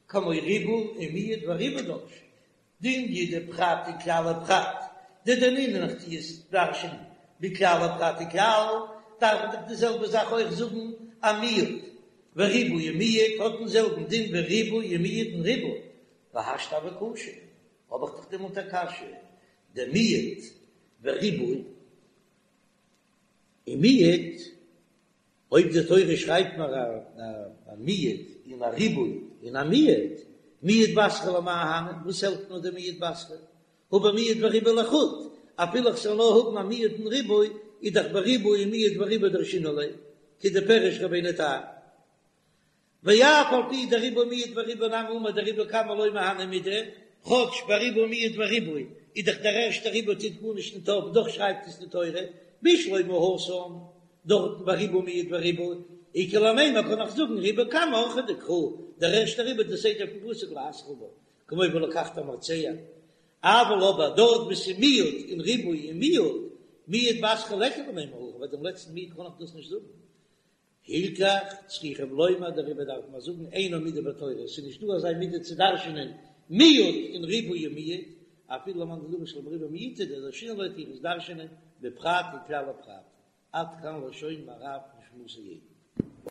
כמו ריבוי ומיעוט וריבוי דרשי, דאם ידעי פרט וכלל ופרט, דדנינן איך טו עס דרש'ענען ווי כלל ופרט וכלל, דארף מען דאך די זעלבע זאך אויך זאגן א מיעוט וריבוי ומיעוט האט דעם זעלבן דין ווי ריבוי ומיעוט און ריבוי, והשתא הוה קשה, האב איך דאך דעמאלט א קשיא, דמיעט וריבוי ומיעט, אויב די תורה שרייבט מיר א מיעוט און א ריבוי און א מיעוט, מיעוט בתרא למאי אהני, וואס העלפט מיר די מיעוט בתרא? הא במיעט וריבוי לחוד, אפילו איך זאל נאר האבן א מיעוט און ריבוי, איז דאך בריבוי ומיעוט וריבוי דרשינן ליה, כדפירש רבינו תם. ואף על פי דריבה מיעט וריבה נמי אמר דריבה קמא לא מהני מידי, כאטש ביי ריבה מיעט וריבוי איז דאך דער ערשטער ריבוי טוט גארנישט ניט אויף דאך שרייבט עס די תורה, בשלמא התם, דארטן ביי ריבה מיעט וריבוי, איכא למימר קען איך זאגן ריבה קמא אורחיה דקרא, דער ערשטער ריבוי די סדר פון פסוק להתחיל בה, כמו ולקחת המרצע, אבל אבער דארט וואו ס'איז מיעוט און ריבוי און מיעוט, מיעוט בתרא ליכא למימר הכי, ביי דעם לעצטן מיעוט קען איך דאס נישט זאגן. הילכך צריכים לומר דעריבער דארף מען זאגן אינה מידה בתורה, עס איז נישט דא אזא מידה צו דרש'נען מיעוט און ריבוי און מיעוט, אפילו למאן דדריש בריבוי ומיעוטא דדרשינן ליה טו איך עס דרש'נען בפרט וכלל ופרט, עד כאן לשון מהר"ב נשמתו עדן.